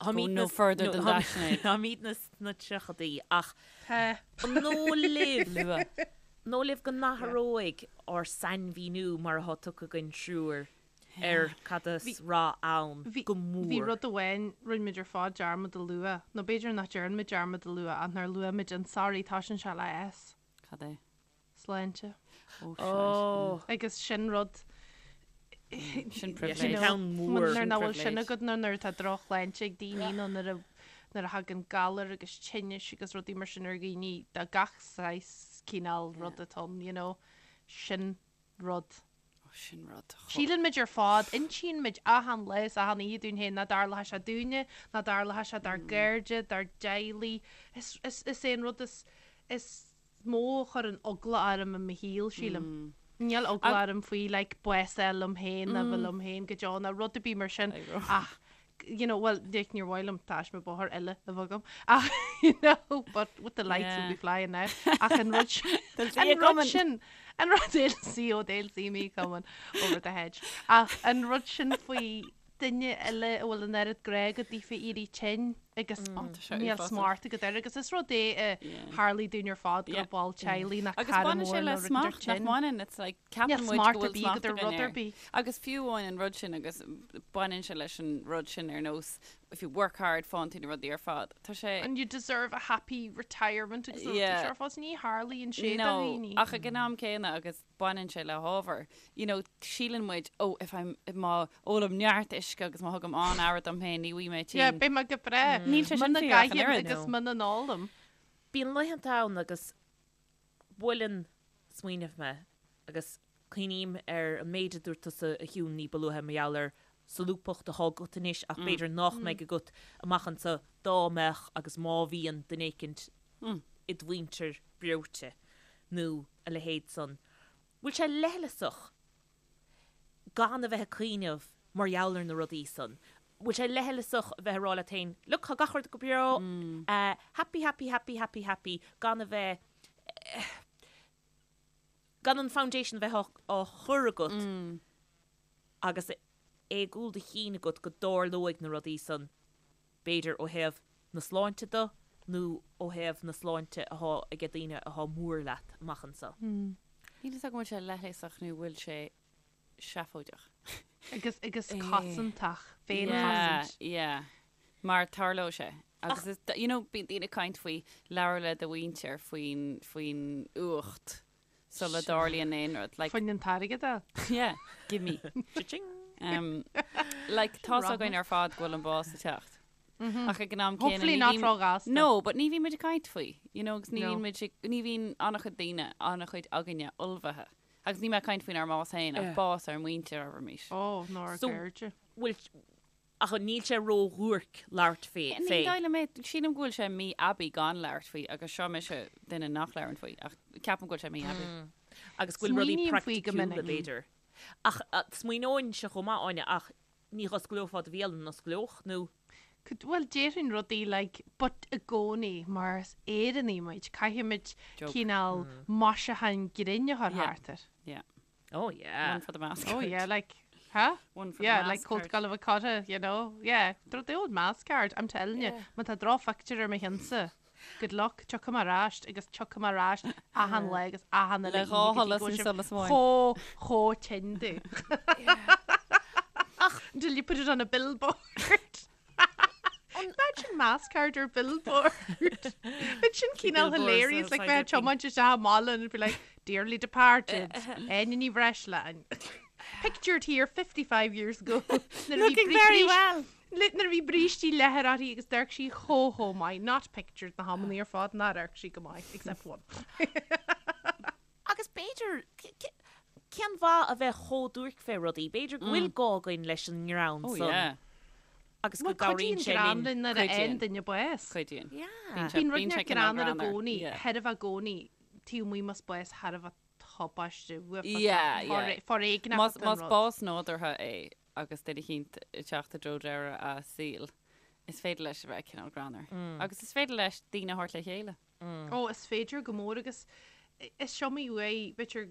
[SPEAKER 3] Go no further than that, Sinéad.
[SPEAKER 2] Táimidne sna tríochaidí ach
[SPEAKER 4] Tá.
[SPEAKER 2] an dóigh libh,
[SPEAKER 3] Luath.
[SPEAKER 2] an dóigh libh go n-athróidh ár sainmhíniú mar atá tugtha againn triúr ar cad is rath ann go mór?
[SPEAKER 4] Bhí rud amháin, rinne muid ar fad dearmad a lua, nó b'fhéidir nach dtearn muid dearmad a lua ach nár luaigh muid an sorry, toisíonn sé le S.
[SPEAKER 3] Cad é?
[SPEAKER 4] Sláinte.
[SPEAKER 3] Ó,
[SPEAKER 2] Ó.
[SPEAKER 4] Agus sin rud.
[SPEAKER 3] Sin
[SPEAKER 2] Yeah,
[SPEAKER 3] privilege.
[SPEAKER 2] sin ceann mór.
[SPEAKER 4] Nuair nach bhfuil sin
[SPEAKER 3] privilege.
[SPEAKER 4] agat nó nuair atá drochshláinte ag daoine nó nuair a nuair a thagann galar agus tinnis agus rudaí mar sin ar dhaoine de gach saghas cineál rud atá ann, you know, sin rud.
[SPEAKER 3] Ó, sin rud.
[SPEAKER 4] Síleann muid ar fad, insíonn muid achan lá is achan oíche dúinn féin nach dtarlóidh sé dúinne, nach dtarlóidh sé dár gcairde, dár dteaghlaigh. Is, is, is é an rud is, is mó a chuireann eagla orm i mo shaol, sílim. Níl eagla orm faoi like bás a fháil liom féin nó bheith liom féin go deo nó rud ar bith mar sin ach you know, well, like, níor mhaith liom taisme bóthair eile a bheith agam ach you know, but with the lights will be flying now ach an rud sin,
[SPEAKER 3] They'll see you
[SPEAKER 4] an rud
[SPEAKER 3] coming.
[SPEAKER 4] sin, an rud they'll see, oh, they'll see me coming over the hedge ach an rud sin faoi duine eile a bhfuil an oiread grá agat daofa éirí tinn agus níl
[SPEAKER 3] uafásach.
[SPEAKER 4] smacht agat air agus is rud é a tharlaigh dúinn ar fad go
[SPEAKER 3] Yeah.
[SPEAKER 4] raibh ball teaghlaigh nach
[SPEAKER 3] Agus
[SPEAKER 4] cara
[SPEAKER 3] baineann
[SPEAKER 4] mór
[SPEAKER 3] sé le
[SPEAKER 4] nó rud ar
[SPEAKER 3] smacht nach
[SPEAKER 4] tinn.
[SPEAKER 3] mbaineann, it's like
[SPEAKER 4] Níl
[SPEAKER 3] ceapann muid
[SPEAKER 4] smacht
[SPEAKER 3] go
[SPEAKER 4] ar
[SPEAKER 3] bhfuil
[SPEAKER 4] bith
[SPEAKER 3] smacht
[SPEAKER 4] agat ar
[SPEAKER 3] againn
[SPEAKER 4] rud ar
[SPEAKER 3] air.
[SPEAKER 4] bith.
[SPEAKER 3] Agus fiú amháin an rud sin agus baineann sé leis an rud sin ar nós if you work hard faigheann tú na rudaí ar fad. Tá sé
[SPEAKER 4] And you deserve a happy retirement agus na rudaí
[SPEAKER 3] Yeah.
[SPEAKER 4] seo ar fad. Ní tharlaíonn sé do
[SPEAKER 3] No,
[SPEAKER 4] dhaoine.
[SPEAKER 3] ach ag an am céanna agus baineann sé le hábhar. You know, síleann muid, oh, if I'm, má ólaim neart uisce agus má thugaim an-aire dom féin, ní bheidh mé
[SPEAKER 4] Yeah,
[SPEAKER 3] tinn.
[SPEAKER 4] beidh mé go breá.
[SPEAKER 3] Níl sé sin
[SPEAKER 4] Muna
[SPEAKER 3] fíor ach an
[SPEAKER 4] gcaithim
[SPEAKER 3] oiread.
[SPEAKER 4] agus muna n-ólaim.
[SPEAKER 2] Bíonn laethanta ann agus buaileann smaoineamh mé agus cuimhním ar an méid a dúirt tusa a Shiún ní ba luaithe mar gheall ar solúbthacht atá agat anois ach b'fhéidir nach mbeidh agat amach anseo dá mbeadh agus má bhíonn duine éicint id mhuintir breoite nó a leithéid san. Bhfuil sé leithleasach gan a bheith ag cuimhneamh mar gheall ar na rudaí san? Bhfuil sé leithleasach a bheith ag rá leat féin, look, tá gach rud go breá, happy, happy, happy, happy, happy, gan a bheith, gan an foundation a bheith á chur agat agus é i gcúl do chinn agat go dtarlóidh na rudaí san, b'fhéidir ó thaobh na sláinte de nó ó thaobh na sláinte athá aige daoine athá mór leat amach anso.
[SPEAKER 3] Níl fhios agam an bhfuil sé leithleasach nó bhfuil sé seafóideach.
[SPEAKER 4] Agus, agus cosantach, féinchosaint.
[SPEAKER 3] Yeah, yeah. Mar tarlóidh sé. Agus is, you know, bíonn daoine ag caint faoi labhair le do mhuintir faoin, faoin uacht sula dtarlaíonn aon rud. Like,
[SPEAKER 4] Faoin an t-airgead a.
[SPEAKER 3] yeah, give me.
[SPEAKER 2] Cha-ching!
[SPEAKER 3] Um, like, tá's againn ar fad go bhfuil an bás ag teacht. Ach ag an am céanna,
[SPEAKER 4] Hopefully
[SPEAKER 3] ní
[SPEAKER 4] not
[SPEAKER 3] bhíonn-
[SPEAKER 4] róghasta.
[SPEAKER 3] No, but ní bhíonn muid ag caint faoi. You know, agus ní
[SPEAKER 4] No.
[SPEAKER 3] bhíonn muid ag, ní bhíonn an-chuid daoine, an-chuid againne ullmhaithe. Agus níl mé ag caint faoinár mbás féin, ach bás ár muintir, abraimis.
[SPEAKER 4] Ó, nó ár
[SPEAKER 2] So-
[SPEAKER 4] gcairde.
[SPEAKER 2] Bhfuil, ach níl sé ró-dhuairc labhairt fé,
[SPEAKER 3] Ní
[SPEAKER 2] fé.
[SPEAKER 3] dóigh liom é, sílim go bhfuil sé mí-aibí gan labhairt faoi, agus seo mise duine nach labhrann faoi, ach ceapaim go bhfuil sé mí-aibí.
[SPEAKER 2] Agus go bhfuil rudaí
[SPEAKER 4] Smaoiním faoi go
[SPEAKER 2] praiticiúla,
[SPEAKER 4] minic.
[SPEAKER 2] b'fhéidir. Ach smaoineoinnse chomh maith, Áine, ach ní dh'osclófá do bhéal an osclódh, nó?
[SPEAKER 4] Could, bhuel, déarfainn rudaí like, but i gcónaí, mar is Éireannaigh muid, caithfimid
[SPEAKER 3] Joke.
[SPEAKER 4] cineál maisiúchán grinn a chur
[SPEAKER 3] Yeah.
[SPEAKER 4] thart air.
[SPEAKER 3] Yeah.
[SPEAKER 2] Oh yeah.
[SPEAKER 3] One for the mask.
[SPEAKER 4] Oh yeah, like, huh?
[SPEAKER 3] One for the
[SPEAKER 4] Yeah,
[SPEAKER 3] mask
[SPEAKER 4] like
[SPEAKER 3] card.
[SPEAKER 4] Cult Gallimhe Cotta, you know? Yeah, the old mask card, I'm telling you. Má tá drochphictiúr ar mo cheannsa. Good luck, tiocfaidh mé ar ais agus tiocfaidh mé ar ais achan lá agus achan uile
[SPEAKER 3] Le
[SPEAKER 4] oíche
[SPEAKER 3] dhá
[SPEAKER 4] go dtí
[SPEAKER 3] sholas
[SPEAKER 4] go
[SPEAKER 3] nó
[SPEAKER 4] bhfuil sibh
[SPEAKER 3] solas amháin.
[SPEAKER 4] Chomh, chomh tinn domh. Until you put it on a billboard. Imagine mask card ar billboard. Bheadh sin cineál
[SPEAKER 2] Billboards
[SPEAKER 4] hilarious, like
[SPEAKER 2] outside
[SPEAKER 4] bheith
[SPEAKER 2] your
[SPEAKER 4] tiomáint isteach i mbaile and it'd be like, dearly departed, Áine Ní Bhreisleáin. Pictured here 55 years ago.
[SPEAKER 3] Looking very well.
[SPEAKER 4] Nuair a bhí brístí leathair uirthi agus d'amharc sí chomh chomh maith. Not pictured na hamannaí ar fad nár amharc sí go maith, except one.
[SPEAKER 2] Agus b'fhéidir, cén mhaith a bheith chomh duairc fé rudaí? B'fhéidir go bhfuil gá againn leis an ngreann
[SPEAKER 3] Oh
[SPEAKER 2] san
[SPEAKER 3] yeah.
[SPEAKER 2] agus go
[SPEAKER 4] Bhuel,
[SPEAKER 2] gcabhraíonn
[SPEAKER 4] cuidíonn
[SPEAKER 2] sé
[SPEAKER 4] greann
[SPEAKER 2] linn.
[SPEAKER 4] linn nuair a
[SPEAKER 3] Cuidíonn.
[SPEAKER 4] fhaigheann duine bás.
[SPEAKER 3] Cuidíonn.
[SPEAKER 2] Yeah.
[SPEAKER 3] Bíonn sé
[SPEAKER 4] Bíonn rud
[SPEAKER 3] bíonn sé
[SPEAKER 4] inteacht
[SPEAKER 3] cineál
[SPEAKER 4] greannmhar i
[SPEAKER 3] greannmhar.
[SPEAKER 4] gcónaí,
[SPEAKER 3] Yeah.
[SPEAKER 4] thar a bheith i gcónaí, taobh amuigh más bás thar a bheith tubaiste, uafásach,
[SPEAKER 3] Yeah, yeah.
[SPEAKER 4] foréigneach
[SPEAKER 3] Más
[SPEAKER 4] atá an
[SPEAKER 3] más
[SPEAKER 4] rud.
[SPEAKER 3] bás nádúrtha é agus duine eicínt ag teacht i dtreo deireadh a saoil, is féidir leis a bheith cineál greannmhar. Agus is féidir leis daoine a thabhairt le chéile.
[SPEAKER 4] Ó, is féidir go mór agus is iomaí uair, b'fhéidir,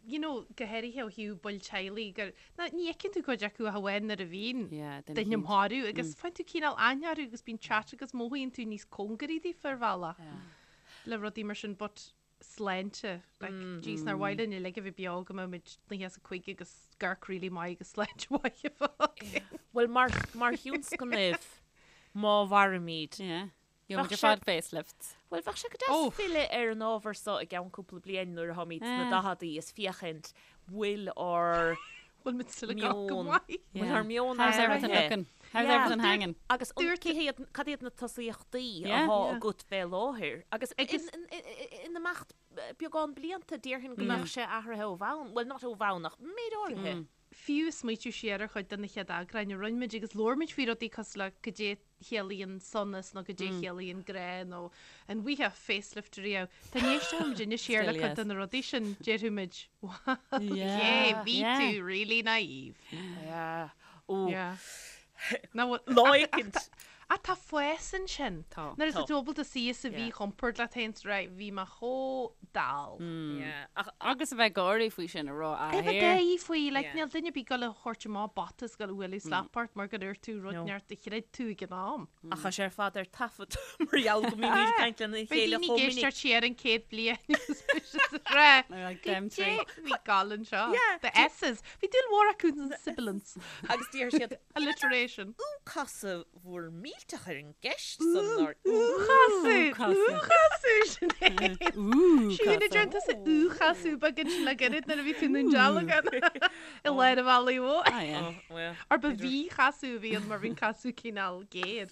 [SPEAKER 4] you know, go háirithe ó thaobh baill teaghlaigh gur, ná, ní fheiceann tú cuid acu ach amháin nuair a bhíonn
[SPEAKER 3] Yeah, duine
[SPEAKER 4] duine
[SPEAKER 3] eicínt.
[SPEAKER 4] marbh agus faigheann tú cineál aithne orthu agus bíonn chat agus mothaíonn tú níos cóngaraí daofa ar bhealach le rudaí mar sin but sláinte, like, jeez, nár mhaith linn uilig a bheith beo go mbeidh muid 95 agus amharc really maith agus sláinte mhaith a bheith againn.
[SPEAKER 2] Bhuel, mar, mar thionscnamh, má mhairimid,
[SPEAKER 3] Yeah. Gheobhaimid
[SPEAKER 2] Bheadh
[SPEAKER 3] ar
[SPEAKER 2] sé-
[SPEAKER 3] fad facelifts.
[SPEAKER 2] Bhuel, bheadh sé go deas filleadh ar an ábhar seo i gceann cúpla bliain nuair atháimid sna daicheadaí is féachaint bhfuil ár
[SPEAKER 4] Bhfuil muid still ag amharc go
[SPEAKER 2] meon,
[SPEAKER 4] maith?
[SPEAKER 2] bhfuil ár meon
[SPEAKER 3] How's everything
[SPEAKER 2] athraithe.
[SPEAKER 3] looking? How's
[SPEAKER 2] Yeah.
[SPEAKER 3] everything hanging?
[SPEAKER 2] Agus an,
[SPEAKER 4] Dúirt-
[SPEAKER 2] cé hiad, cad iad na tosaíochtaí
[SPEAKER 3] Yeah.
[SPEAKER 2] atá
[SPEAKER 4] Yeah.
[SPEAKER 2] agat fé láthair? Agus
[SPEAKER 4] Agus-
[SPEAKER 2] in, in, in, in imeacht beagán blianta, déarfainn go mbeadh sé athraithe ó bhonn. Bhuel, not ó bhonn ach méid áirithe.
[SPEAKER 4] Fiú smaoitiú siar ar chuid de na chéad eagráin a rinne muid agus labhair muid faoi rudaí cosúil le goidé chiallaíonn sonas nó goidé chiallaíonn grá nó an bhfaighfeá facelift riamh. Dá n-éistfeadh muid anois siar le
[SPEAKER 3] Still
[SPEAKER 4] cuid
[SPEAKER 3] yes.
[SPEAKER 4] de na rudaí sin, déarfadh muid, wow,
[SPEAKER 3] Yeah,
[SPEAKER 4] yeah, bhí
[SPEAKER 3] yeah.
[SPEAKER 4] tú really naive.
[SPEAKER 2] Yeah. Ó,
[SPEAKER 4] Yeah. Now, what-
[SPEAKER 2] Lá
[SPEAKER 4] ach- ach
[SPEAKER 2] éicint.
[SPEAKER 4] tá- Ach tá fás ansin.
[SPEAKER 3] Tá.
[SPEAKER 4] Nuair
[SPEAKER 2] Tá.
[SPEAKER 4] atá tú ábalta suí sa mhíchompord leat féin is right, bhí mé chomh dall.
[SPEAKER 2] Yeah. Ach
[SPEAKER 3] Agus a bheith ag gáirí faoi sin a rá
[SPEAKER 4] A bheith
[SPEAKER 3] here.
[SPEAKER 4] gáirí faoi, like,
[SPEAKER 2] Yeah.
[SPEAKER 4] níl duine ar bith ag gabháil a thabhairt amach bata is gabháil a bhualadh slap ort mar gur dhúirt tú rud
[SPEAKER 2] No.
[SPEAKER 4] inteacht a chreid tú ag an am.
[SPEAKER 2] Ach tá sé ar fad ar taifead mar gheall go mbímid ag caint lena
[SPEAKER 4] Beidh
[SPEAKER 2] chéile
[SPEAKER 4] daoine
[SPEAKER 2] chomh
[SPEAKER 4] ag
[SPEAKER 2] minic.
[SPEAKER 4] éisteacht siar an chéad bliain agus beidh siad ag rá,
[SPEAKER 3] They're like them
[SPEAKER 4] "Goidé
[SPEAKER 3] three.
[SPEAKER 4] bhí ag gabháil anseo.
[SPEAKER 2] Yeah.
[SPEAKER 4] The S's. Bhí dúil mhór acu in sibilance.
[SPEAKER 2] Agus deir siad
[SPEAKER 4] Alliteration.
[SPEAKER 2] Ú casadh bhur millteach ar an gceist san nár
[SPEAKER 4] Úchasadh!
[SPEAKER 3] Úchasadh.
[SPEAKER 4] Úchasadh Sinéad!
[SPEAKER 3] Ú,
[SPEAKER 4] Siún a
[SPEAKER 3] casadh.
[SPEAKER 4] deireann tusa úchasadh beag ansin le gairid nuair a bhí tú i nDún Dealgan i lár an bhealaigh mhóir.
[SPEAKER 3] Ah, yeah.
[SPEAKER 2] Oh, well.
[SPEAKER 4] Or ba mhíchasadh a bhí ann mar bhí an casadh cineál géar.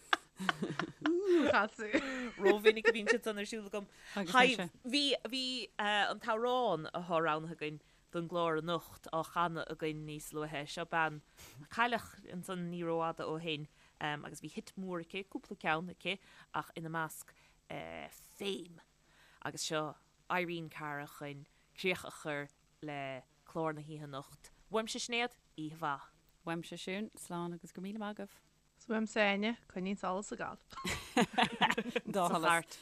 [SPEAKER 4] Úchasadh.
[SPEAKER 2] Rómhinic a bhíonn siad san ar siúl agam.
[SPEAKER 3] Agus
[SPEAKER 2] Hi,
[SPEAKER 3] mise.
[SPEAKER 2] bhí bhí eh, an t-amhrán atá roghnaithe againn don gclár anocht á chanadh againn níos luaithe. Seo bean a cailleadh ansan ní rófhada ó shin agus bhí hit mór aici, cúpla ceann aici, ach ina measc Fame. Agus seo Irene Cara chun críoch a chur le clár na hoíche anocht. Uaimse Sinéad, oíche mhaith.
[SPEAKER 3] Uaimse Siún, slán agus go raibh míle maith agaibh.
[SPEAKER 4] 'S uaimse Áine, coinnigh an solas ag gabháil.
[SPEAKER 3] Dá
[SPEAKER 2] Sa
[SPEAKER 3] sholas.
[SPEAKER 2] chairt.